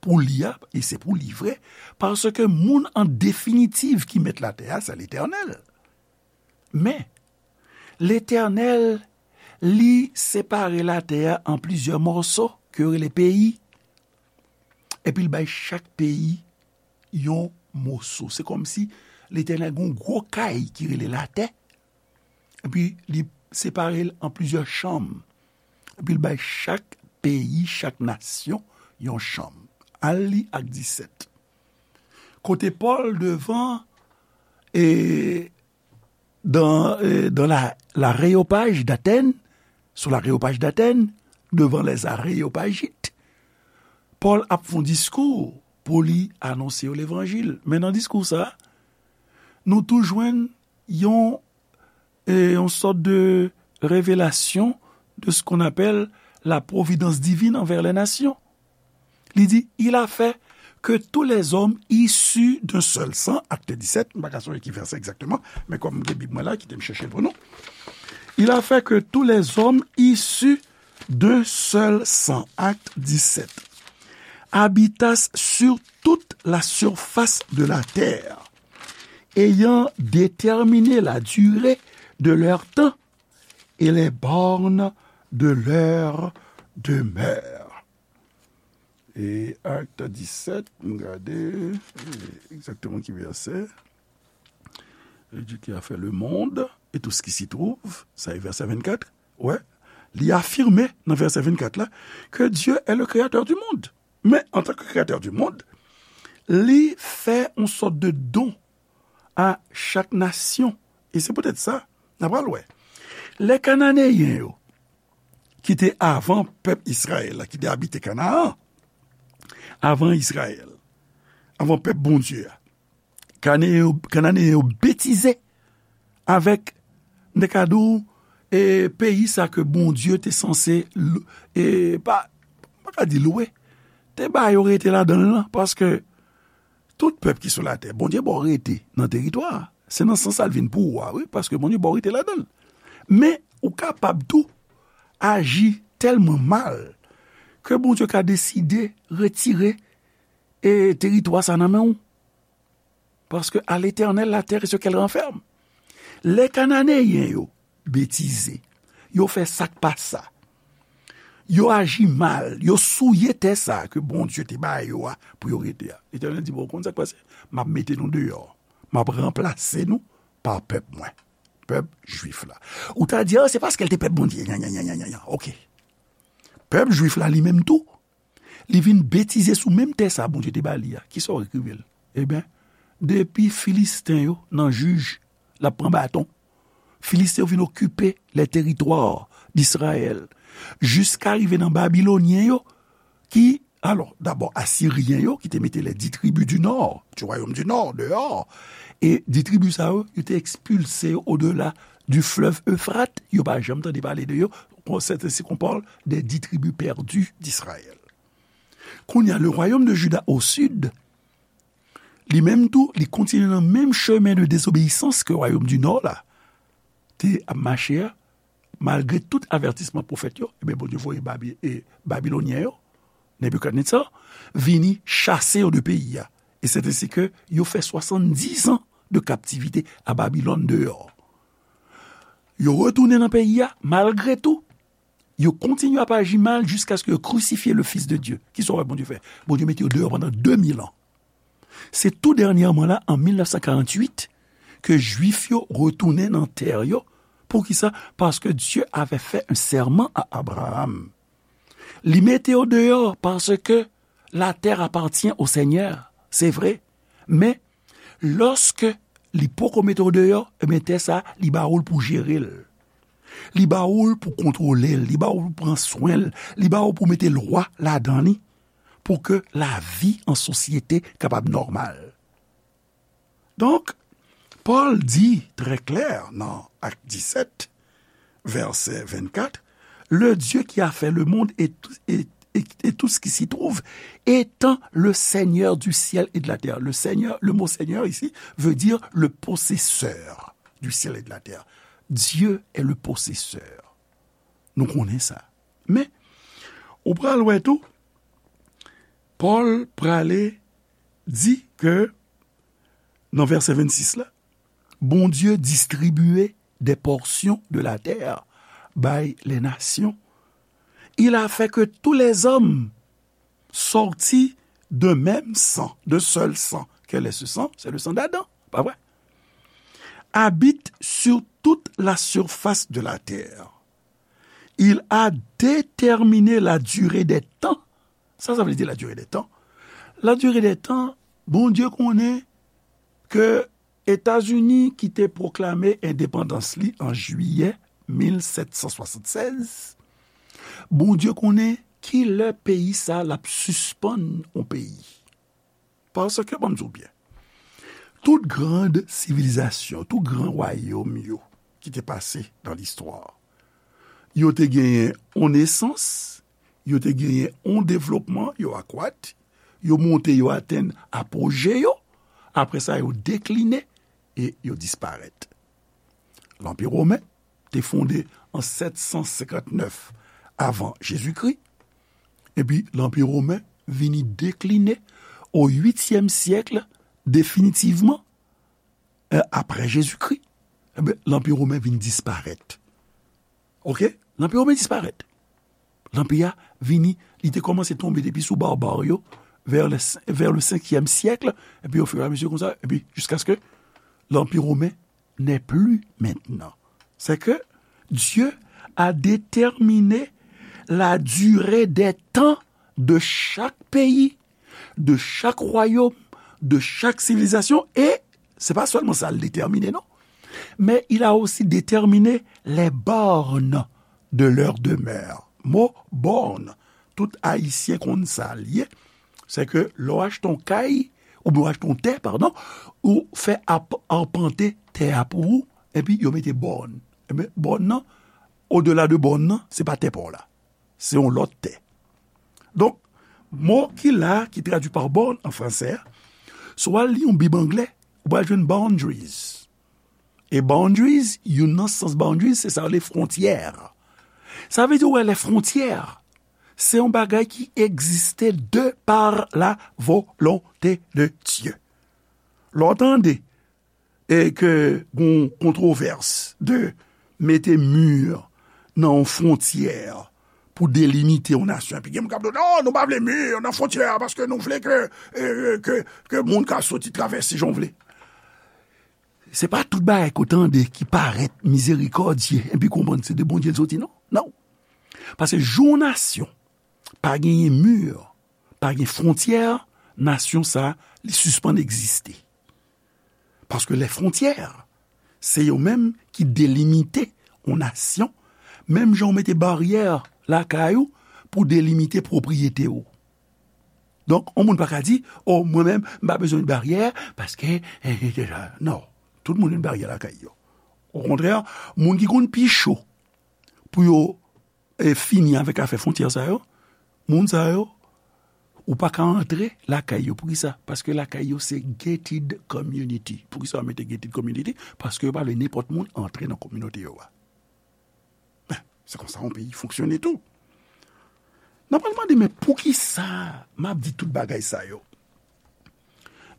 pou li a, e se pou li vre, paske moun an definitiv ki mèt latè a, se Letènèl. Men, Letènèl, li separe latè a an plizyè mòso, ke yo rele peyi, epi l bay chak peyi yon moso. Se kòmsi Letènèl gen yon gwo kay ki rele latè, epi li separe l an plizyè chanm, epi l bay chak peyi, chak nasyon, yon chanm. Al li Ak disèt. Kote Pòl devan, e, dans, e, dans la, l'aréopage d'Athènes, sous l'aréopage d'Athènes, devant les Aréopagites, Pòl ap fè yon diskou pou li anonse yo levanjil. Men nan diskou sa, nou tou jwenn yon, e, yon sòt de révélation de ce qu'on appelle la providence divine envers les nations. Li di, il a fait que tous les hommes issus d'un seul sang, Acte dix-sept, m pa ka sonje ki vèsè egzakteman, men kòm m gen Bib mwen la, kite m chèche l pou nou. Il a fait que tous les hommes issus d'un seul sang, Acte dix-sept, habitassent sur toute la surface de la terre, ayant déterminé la durée de leur temps et les bornes de leur demeure. E Acte dix-sept, m gade, e, egzakteman ki vèsè. Et Dieu qui a fait le monde et tout ce qui s'y trouve, sa e vèsè vennkat. Wè, li afime nan vèsè vennkat la que Dieu est le créateur du monde. Men, antanke créateur du monde, li fè yon sòt de don a chak nasyon. E se poutèt sa, n a pral wè. Lè Kananeyen yo, ki te avan pèp Izrayèl la, ki te abite Kanaan, avan Izrayèl, avan pèp Bondye a, Kane-, Kananeyen yo betize avèk, m te ka di w, e, peyi sa ke Bondye te sanse l-, e, pa, m pa ka di lwe, te ba yo rete ladan l lan, paske tout pèp ki sou latè, Bondye ba w rete nan teritwa a. Se nan sans sa l vin pou ou a, wi, paske Bondye ba w rete ladan l. Men, ou kapab tou aji tèlman mal ke Bondye ka deside retire, e, teritwa sa nan men w. Parce que à l'Éternel la terre et ce qu'elle renferme. Lè Kananeyen yo betize, yo fè sa k pa sa, yo aji mal, yo souye tè sa a ke Bondye te ba yo a pou yo rete a. Letènèl di, "Bon, ou konn sa k pase? M ap mete nou deyò. M ap ranplase nou pa pèp mwen, pèp jwif la." Ou ta di, "Ah, se paske l te pèp Bondye." Nyan, nyan, nyan, nyan, nyan, nyan. Oke. Pèp jwif la, li menm tou, li vin betize sou menm tè sa a Bondye te ba li a. Kisa w wè k rive l? Ebyen, depi Filisten yo nan jij, l ap pran baton. Filisten yo vin okipe les territoires d'Israël, jiska rive nan Babilonyen yo, ki, alò, dabò, Asiryen yo, ki te mete les dix tribus du nord, du royaume du nord, deyò. E dis tribi sa yo, yo te ekspilse yo au-delà du fleuve Euphrate, yo pa janm tande pale de yo. C'est ainsi qu'on parle des dix tribus perdues d'Israël. Kounye a, le royaume de Juda au sud, li menm tou, li kontinye nan menm chemen de désobéissance ke royaume du nord la te ap mache a, malgre tout avètisman pwofèt yo, ebyen, Bondye voye Babi-, e, Babilonyen yo, Nebikadnetza, vini chase yo de peyi a. E c'est ainsi que yo fè soixante-dix ans de captivité à Babylone deyò. Yo retounen nan peyi a, malgre tou, yo kontinye ap aji mal jiskaske yo krisifye le Fils de Dieu. Kisa w wè Bondye fè? Bondye mete yo deyò pandan de mil an. Se tou dènyèman la, an mil nèf san karanntuit, ke Jwif yo retounen nan tè yo. Poukisa? Parce que Dieu avait fait un serment à Abraham. Li mete yo deyò paske la terre appartient au Seigneur, se vre. Men, lòske li poko mete w deyò, ebyen, tè sa, li ba ou l pou jere l. Li ba ou l pou kontwole l, li ba ou l pou pran swen l, li ba ou pou mete lwa ladan li, pou ke lavi an sosyete kapab nòmal. Donk, Pòl di trè klè nan Ak disèt, vèsè vennkat, le Dieu qui a fait le monde et, et, et, et tout ce qui s'y trouve, étant le Seigneur du ciel et de la terre. Le Seigneur, le mot Seigneur ici veut dire le possesseur du ciel et de la terre. Dieu est le possesseur. Nou konnen sa. Men, ou pral wè tou, Pòl prale di ke, nan vèsè vennsis la, Bondye distribiye des portions de la terre bay les nations. Il a fait que tous les hommes sortis d'un même sang, d'un seul sang. Quel est ce sang? C'est le sang d'Adam, pa vre? Habite sur toute la surface de la terre. Il a déterminé la durée des temps. Sa, sa vle di la durée des temps. La durée des temps, Bondye konnen ke Etazini ki te pwoklame endepandans li an jiyè mil sèt san swasannsèz, Bondye konnen ki lè peyi sa l ap sispann yon peyi. Paske, ban m di w byen, tout grand sivilizasyon, tout gran wayòm yo ki te pase nan listwa, yo te genyen yon nesans, yo te genyen yon devlopman, yo akwat, yo monte, yo atenn apoje yo, apre sa, yo dekline e yo disparèt. Lanpi women te fonde an sèt san senkant nèf avan Jezikri, epi Lanpi women vini dekline o uityèm syèk definitivman, eh, apre Jezikri. Enben, Lanpi women vin disparèt. Oke? Lanpi women disparèt. Lanpi a vini, li te kòmanse tonbe depi sou barbare yo, vers le, vers le cinquième siècle, epi au fur et à mesure konsa, epi jusqu'à ce que Lanpi women n'est plus maintenant. C'est que Dieu a déterminé la durée des temps de chaque pays, de chaque royaume, de chaque civilisation, et se pa sèlman sa l detèmine, non, mais il a aussi déterminé les bornes de leur demeure. Mo bòn, tout Ayisyen konn sa l ye, se ke lè w achte yon kay, oubyen w achte yon tè, padon, ou fè ap-, apante tè a pou ou, epi yo mete bòn. Enben, bòn nan, odela de bòn nan, se pa tè pa w la. Se yon lòt tè. Donk, mo ki la, ki tradui pa borne an fransè a, si w al li yon Bib anglè, ou pral jwenn boundaries. E boundaries, youn nan sans boundaries, se sa yo rele fwontyè. Sa vle di, ou wè, les frontières, se yon bagay ki egziste de par la volonté de Dieu. Lè w tande e ke gon kontwovès de mete mi nan yon fwontyè pou delimite yon nasyon. Epi gen moun k ap di, "Non, nou pa vle mi nan fwontyè a, paske nou vle ke, e, ke, ke moun ka soti travèse jan w vle." Se pa tout bagay ke w tande ki parèt mizerikòdye, epi konprann se de Bondye l soti, non. Non. Paske jou yon nasyon pa genyen mi, pa gen fwontyè, nasyon sa a, li sispann egziste. Paske les frontières, se yo menm ki delimite yon nasyon, menm jan w mete baryè lakay ou pou delimite pwopriyete w. Donk, yon moun pa ka di, "O, mwen menm, m pa bezwen baryè, paske," eh, eh, eh, non, tout moun gen baryè lakay yo. Okontrè, moun ki konn pi cho pou yo e fini avèk afè fwontyè sa yo, moun sa yo, ou pa ka antre lakay yo. Poukisa? Paske lakay yo se gated community. Poukisa yo mete gated community? Paske yo pa vle nenpòt moun antre nan kominote yo a. Ben, se konsa yon peyi fonksyone tou. N ap pral mande, men poukisa m ap di tout bagay sa yo?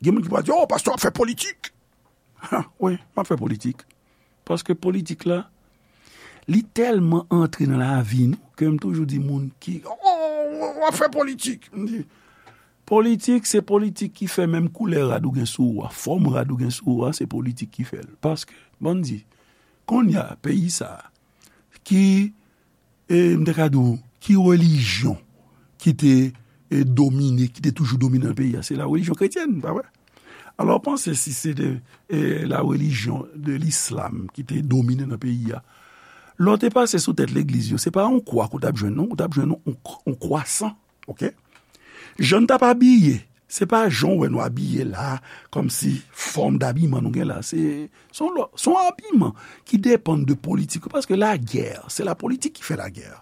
Gen moun ki pral di, "O, pastè ap fè politik." Ha, wi, m ap fè politik. Paske politik la, li tèlman antre nan lavi nou, ke m toujou di moun ki, "O, w ap fè politik." M di, politik, se politik ki fè menm koulè rad ou gen sou ou a, fòm rad ou gen sou ou a, se politik ki fè l. Paske, ban n di, kounye a, peyi sa a, ki e m te ka di w, ki relijyon ki te, e, domine, ki te toujou domine nan peyi a? Se la relijyon kretyèn, pa vre? Alò, panse si se te, e, la relijyon de lislam ki te domine nan peyi a, lè w te pase sou tèt legliz yo, se pa yon kwa ke w t ap jwenn, non, ou t ap jwenn yon, yon, yon kwa san, oke? Jan n t ap abiye, se pa jan w wè nou abiye la, kòmsi fòm dabiman nou gen la. Se, se yon lò-, se yon abiman ki depann de politik, paske lagè, se lapolitik ki fè lagè.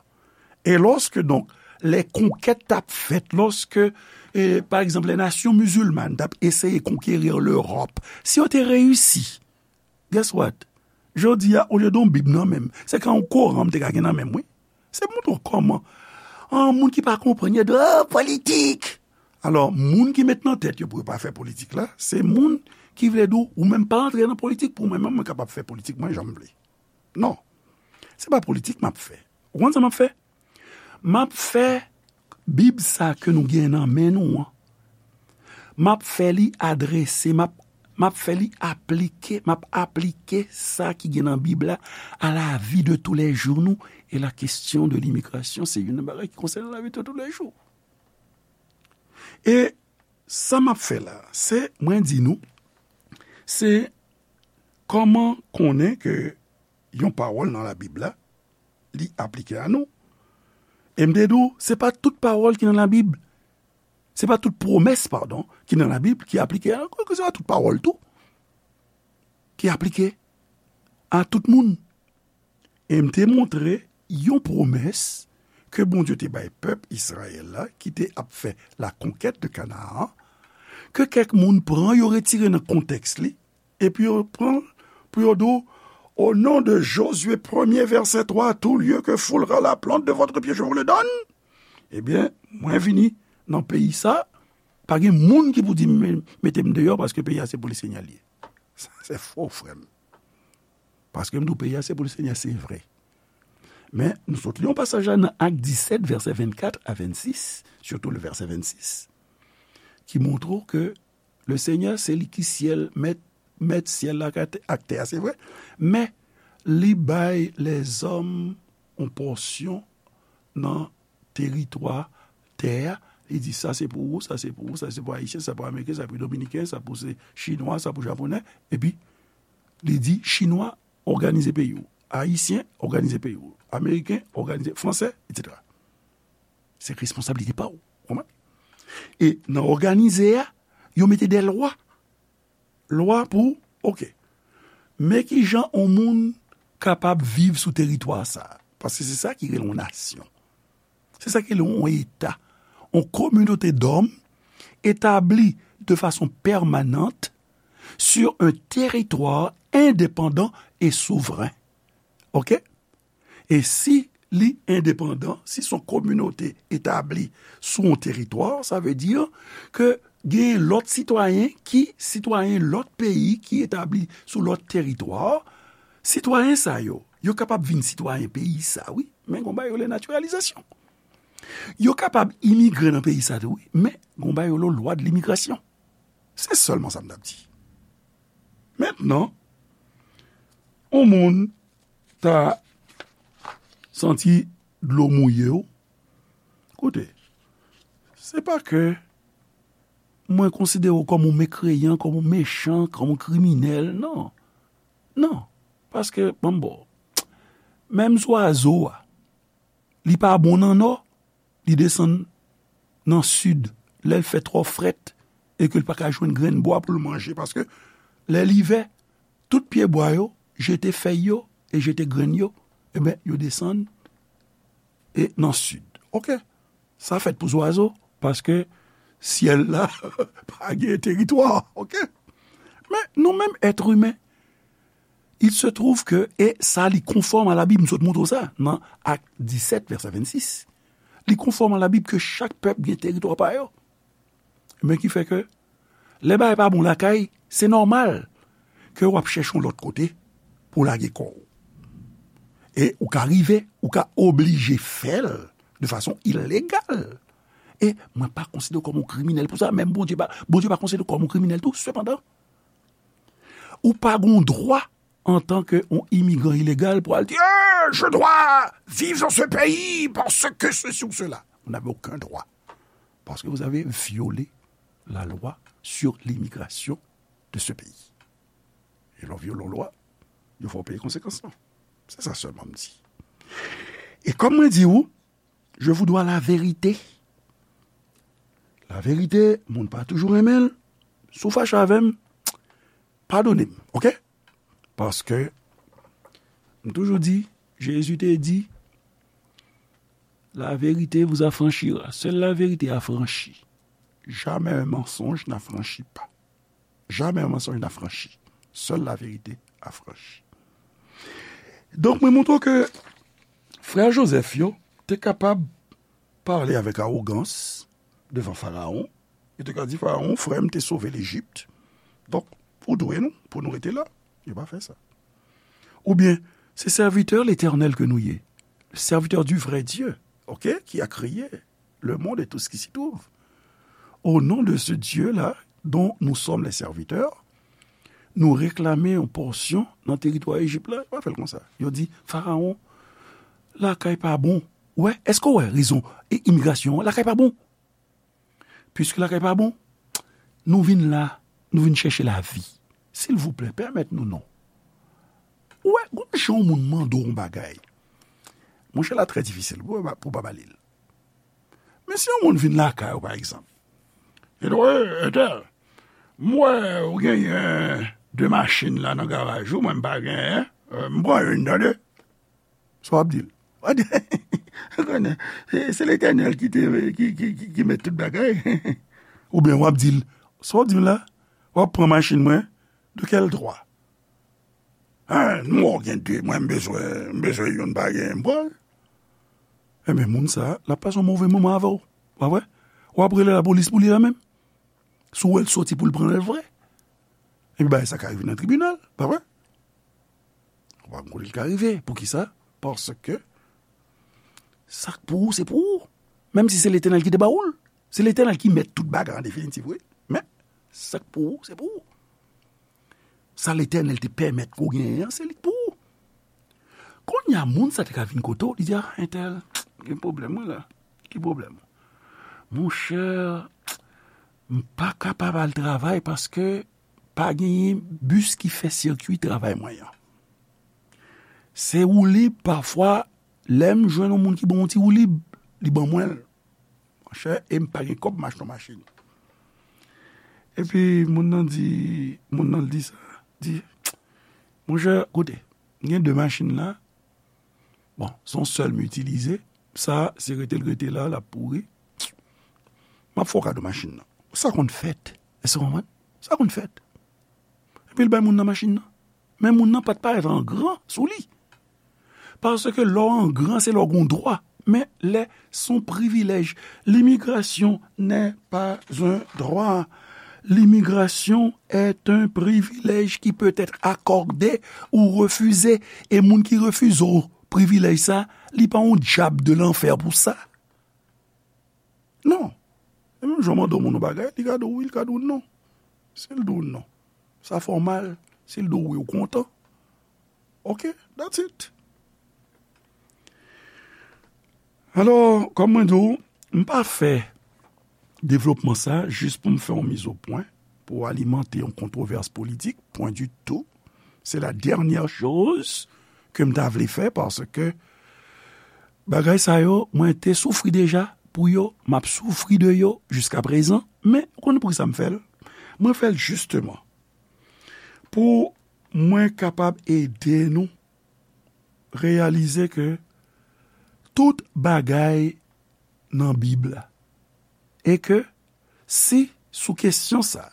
E lòske, donk, lè konkèt t ap fèt, lòske, eh, pa egzanp, lè nasyon mizilmàn t ap eseye konkeri Lewòp, si yo te reyisi, guess what? Jodi a, olye de yon Bib nan men m, se ka yon Koran m te ka gen nan men m, wi. Se montre w kòman, an, moun ki pa konprann, yo di, "Ah, politik!" Alò, moun ki met nan tèt yo pou yo pa fè politik la, se moun ki vle di w, ou menm pa antre nan politik pou mwen, men mwen kapab fè politik mwen jan m vle. Non. Se pa politik m ap fè. Ou konn sa m ap fè? M ap fè Bib sa ke nou gen nan men nou an. M ap fè li adrese, m ap, m ap fè li aplike, m ap aplike sa ki gen nan Bib la à la vie de tous les jours nou. E la kesyon de limigrasyon, se youn nan bagay ki konsène lavi de tous les jours. E sa m ap fè la, se, mwen di nou, se kòman konnen ke yon pawòl nan Labib la, li aplike a nou. E m te di w, se pa tout pawòl ki nan Labib, se pa tout pwomès, padon, ki nan Labib ki aplike a nou, ke se pa tout pawòl tou ki aplike a tout moun. E m te montre yon pwomès ke Bondye te bay pèp Izrayèl la, ki te ap fè la conquête de Canaan, ke kèk moun pran, yo retire nan kontèks li, epi yo pran l pou yo di w, "Au nom de Josué premier, verset trois, tout lieu que foulera la plante de votre pied, je vous le donne." Ebyen, mwen vini nan peyi sa, pa gen moun ki pou di m, mete m deyò, paske peyi a se pou Lesenyè l ye. Sa se fo, frè m. Paske m di w peyi a se pou Lesenyè, se vre. Men, nou sot li yon pasaj la nan Ak disèt, vèsè vennkat a vennsis, sitou le vèsè vennsis, ki montre w ke Lesenyè, se li ki syèl, mèt, mèt syèl la ak tè, ak tè a, se vre. Men, li bay lèzòm yon pòsyon nan teritwa tè a. Li di, "Sa se pou ou, sa se pou ou, sa se pou Ayisyen, sa pou Ameriken, sa pou Dominiken, sa pou se Chinwa, sa pou Japonè." Epi, li di, "Chinwa, òganize peyi w. Ayisyen, òganize peyi w. Ameriken, òganize, Fransè, etsetera." Se responsablite pa w. Konprann? E nan òganize a, yo mete de lwa. Lwa pou, oke. Men ki jan yon moun kapab viv sou teritwa sa a. Paske se sa ki rele yon nasyon. Se sa ki rele yon eta. Yon kominote dòm etabli de fason pèmanant sur un territoire indépendant et souverain. Oke? E si li endepandan, si se yon kominote etabli sou yon teritwa, sa vle di ke gen lòt sitwayen ki sitwayen lòt peyi ki etabli sou lòt teritwa. Sitwayen sa yo, yo kapab vin sitwayen peyi sa, wi, men gon bagay yo rele natiralizasyon. Yo kapab imigre nan peyi sa tou, wi, men gon bagay yo rele lwa de limigrasyon. Se sèlman sa m t ap di. Mentnan, yon moun ta santi dlo mouye w. Koute, se pa ke mwen konsidere w kòm yon mekreyan, kòm yon mechan, kòm yon kriminèl, non. Non, paske, ban m ba w, menm zwazo a, li pa bon nan nò, li desann nan sid, lè l fè twò frèt, e ke l pa ka jwenn grenn bwa pou l manje, paske lè livè, tout pyebwa yo jete fèy yo e jete grenn yo, ebyen, yo desann e nan sid. Oke, sa fèt pou zwazo, paske syèl la pa gen teritwa, oke? Men nou menm èt imen, il se trouve que, e sa li konfòm a la Bib, m sot montre w sa, nan Ak disèt, vèsè vennsis. Li konfòm a la Bib ke chak pèp gen teritwa pa yo. Men ki fè ke, lè bagay pa bon lakay, se nòmal ke w ap chèche yon lòt kote pou w lage kò w. E ou ka rive, ou ka oblije fè l de fason ilegal. E mwen pa konsidere w kòm yon kriminèl pou sa, menm Bondye pa, Bondye pa konsidere w kòm yon kriminèl tou, sepandan, ou pa gen dwa antanke yon imigran ilegal pou al di, "Eh, je dois vivre dans ce pays parce que ceci ou cela." Vous n'avez aucun droit. Parce que vous avez violé la loi sur l'immigration de ce pays. E lè w vyole yon lwa, yo fè w peye konsekans lan. Se sa sèlman m di. E kòm mwen di w, je vous dois la vérité. La verite, moun pa toujou renmen l. Si w fache avè m, padone m, oke? Paske, m toujou di, Jezi te di, La vérité vous affranchira. Seule la vérité affranchit. Jamais un mensonge n'affranchit pas. Jamais un mensonge n'affranchit. Seule la vérité affranchit. Donk, mwen montre ke frè Joseph yo te kapab pale avèk awogans devan Farawon. Yo te ka di Farawon, frè m te sove Lejip. Donk, ou dwe nou, pou nou rete la. Yo pa fè sa. Oubyen, c'est serviteur l'Éternel que nous y est. Serviteur du vrai Dieu, ok, qui a créé le monde et tout ce qui s'y trouve. Au nom de ce Dieu-là, dont nous sommes les serviteurs, nou reklame yon pòsyon nan teritwa Ejip la. Yo pa fè l konsa. Yo di, Farawon, lakay pa bon. Ou wè, èske w wè rezon e imigrasyon an? Lakay pa bon. Piske lakay pa bon, nou vin la, nou vin chèche lavi. Silvouplè, pèmèt nou non. Ou wè, gon jan yon moun mande w yon bagay. Monchè, la trè difisil pou, pou pa ba li l. Men si yon moun vin lakay ou, pa egzanp, e di, "Ey, entèl, m wè ou genyen de machin la nan garaj ou, mwen m pa genyen, eh, m pran youn, tande." Sa w ap di l? W ap di, "Ou konnen, se, se Letènèl ki te, ki, ki, ki, ki mèt tout bagay." Oubyen w ap di l, "Sa w di m la? W ap pran machin mwen? De quel droit?" "Hein, m wè w gen de, mwen m bezwen, m bezwen youn, pa gen, m pran l." Ebyen, moun sa, l ap pase yon move moman avè w, pa vre? W ap rele lapolis pou li la menm. Si w wè l soti pou l pran l vre. Epi bagay sa ka rive nan tribinal, pa vre? Ou pa konn kote l ka rive. Poukisa? Paske sa k pou ou, se pou ou. Menm si se Letènèl ki te ba ou l. Se Letènèl ki mèt tout bagay an definitif, wi. Men, sa k pou ou, se pou ou. Sa Letènèl te pèmèt ke w genyen an, se li k pou ou. Kounye a, moun sa te ka vin kote w, li di, "Ah, entèl, gen pwoblèm, wi, la. Ki pwoblèm?" "Monchè, m pa kapab al travay paske pa genyen bis ki fè sikwi travay mwen an. Se woulib, pafwa, lè m jwenn yon moun ki ban yon ti woulib, li ban mwen l. Monchè, e m pa gen kòb m achte yon machin." Epi, moun nan di, moun nan di sa, di, "Monchè, koute, m gen de machin la. Bon, se yon sèl m itilize. Sa, si rete l rete la, l ap pouri. M ap fè w kado machin nan." Sa konn fèt. Èske w konprann? Sa konn fèt. Epi l bay moun nan machin nan. Men moun nan pa t parèt an gran sou li. Paske lè w an gran, se lè w gen dwa. Men lè se yon privilèj. L'immigration n'est pas un droit. L'immigration est un privilège qui peut être accordé ou refusé. E moun ki refize w privilèj sa, li pa yon dyab de lanfè pou sa. Non. E menm jan w mande yon moun yon bagay, li ka di w wi, li ka di w non. Si l di w non, sa fè w mal. Si l di w wi, ou kontan. Ok, that's it. Alò, kòm mwen di w, m pa fè devlopman sa jis pou m fè yon mizopwen, pou alimante yon kontwovès politik, point du tout. Se la dènyè choz ke m ta vle fè, paske bagay sa yo, mwen te soufri deja pou yo, m ap soufri de yo jiskaprezan, men ou konn poukisa m fè l? Mwen fè l jisteman pou mwen kapab ede nou reyalize ke tout bagay nan Bib la. E ke si sou kesyon sa,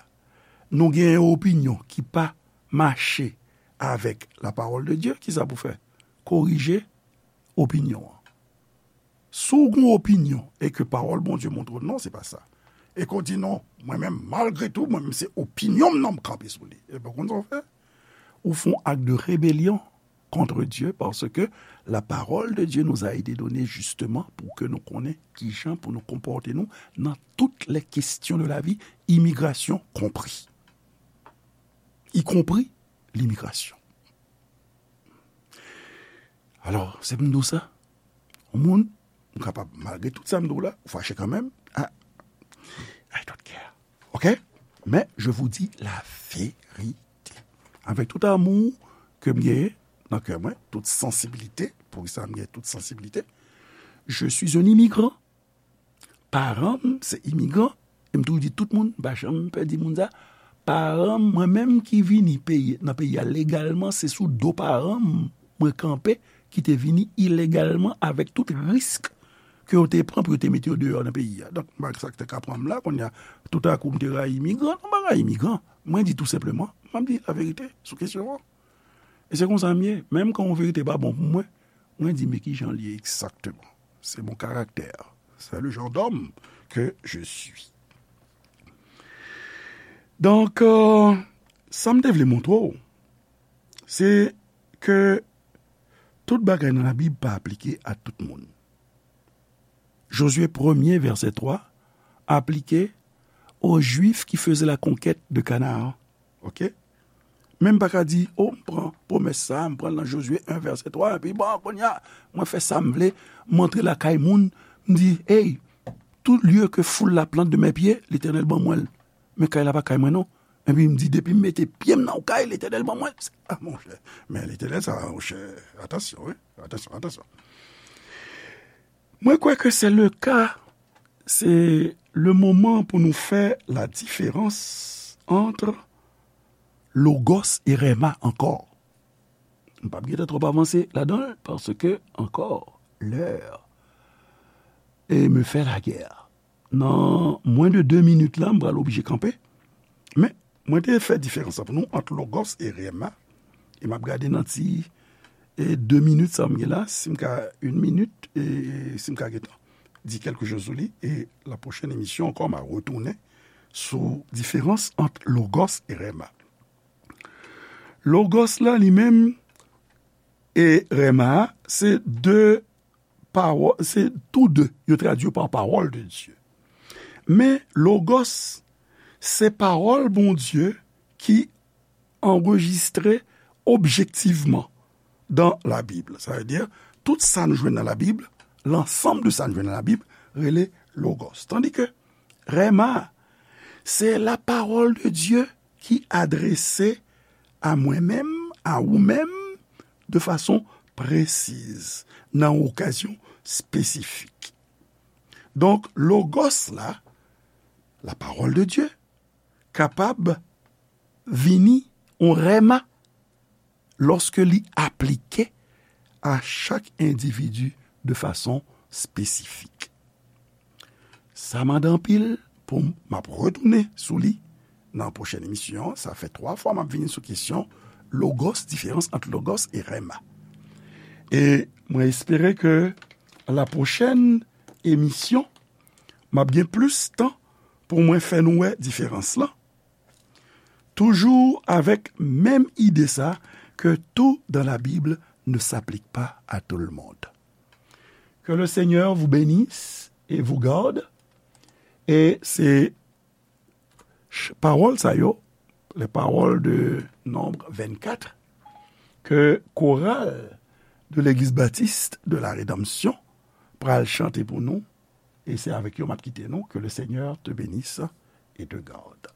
nou gen yon opinyon ki pa mache avèk la parole de Dieu, kisa pou fè? Korije opinyon an. Si w gen yon opinyon e ke pawòl Bondye montre w non, se pa sa. E ke w di non, mwen menm, malgre tou, mwen menm se opinyon m nan m kanpe sou li. Ebyen, ou konn sa w fè? Ou fè yon ak de rebelyon contre Dieu, parce que la parole de Dieu nous a été donnée justement pour que nous connaissions kijan pour nous comporter nous dans toutes les questions de la vie, immigration compris. Y compris l'immigration. Alò, se pou m di w sa, yon moun, ou kapab, malgre tout sa m di w la, ou fache kanmenm, I, I don't care. Ok? Mais je vous dis la vérité. Avec tout amour ke m genyen nan kè mwen, tout sansibilite, poukisa m genyen tout sansibilite, je suis un immigrant. Paran m se imigran, e m toujou di tout moun, m pa janm pè di moun sa, paran m, mwen menm ki vini peyi, nan peyi a legalman, se sou do paran m mwen kanpe, ki te vini ilegalman avèk tout risk ke yo te pran pou yo te mete yo deyò nan peyi a. Donk, m pa sa k te ka pran m la, kounye a, toutakou m te rayi imigran, non, m pa rayi imigran. Mwen di tou senpleman, m ap di laverite sou kesyon an. E se konsa m ye. Menm kan yon verite pa bon pou mwen, mwen di, men ki jan l ye egzakteman. C'est mon caractère. C'est le genre d'homme que je suis. Donk, euh, sa m te vle montre w, se ke tout bagay nan Labib pa aplike a tout moun. Jozye premye, vèsè twa, aplike aux Juifs qui faisaient la conquête de Canaan. Oke? Men m pa ka di, o, m pran pwomès sa, m pran l nan Jozye en, vèsè twa, epi bon, kounye a, mwen fè sa m vle, m antre lakay moun, m di, hey, tout lieu que foule la plante de mes pieds, Letènèl ban mwen l. Men kay la pa kay mwen non. Epi m di, depi m mete pye m nan yon kay, Letènèl ban mwen l. A, monchè, men Letènèl sa, monchè, atansyon, wi, atansyon, atansyon. Mwen kwè ke se le ka, se le moman pou nou fè la diferans ant logos e rema ankò. M p ap gentan twòp avanse ladan l, paske ankò, l'heure e me fait la guerre. Nan mwen de de minit la, m pral oblije kanpe. Men, mwen te fè diferans la pou nou ant logos e rema. E m ap gade nan ti, e, de minit sa m gen la, si m ka, yon minit, e, si m ka gentan di kèlke choz sou li. E la pwochèn emisyon ankò, m a retounen sou diferans ant logos e rema. Logos la, li menm, e rema a, se de pawòl, se tou de, yo tradui yo pa pawòl de Dye. Men logos, se pawòl Bondye ki anrejistre objektivman dan Labib. Sa vle di, tout sa nou jwenn nan Labib, lansanm de sa nou jwenn nan Labib, rele logos. Tandike rema, se la parole de Dieu ki adrese a mwen menm, a ou menm, de fason presiz, nan okazyon espesifik. Donk, logos la, la parole de Dieu, kapab vini yon rema lòske li aplike a chak endividi de fason espesifik. Sa mande anpil pou m, m ap retounen sou li nan pwochèn emisyon an. Sa fè twa fwa m ap vini sou kesyon logos, diferans ant logos e rema. E mwen espere ke la pwochèn emisyon, m ap gen plis tan pou mwen fè nou wè diferans lan. Toujours avec même idée ça, que tout dans la Bible ne s'applique pas à tout le monde. Que le Seigneur vous bénisse et vous garde. E se ch-, pawòl sa yo, les paroles de Nombre vingt-quatre, ke koral de Legliz Batis de la Redanmsyon pral chante pou nou, e se avèk yo m ap kite nou. Que le Seigneur te bénisse et te garde.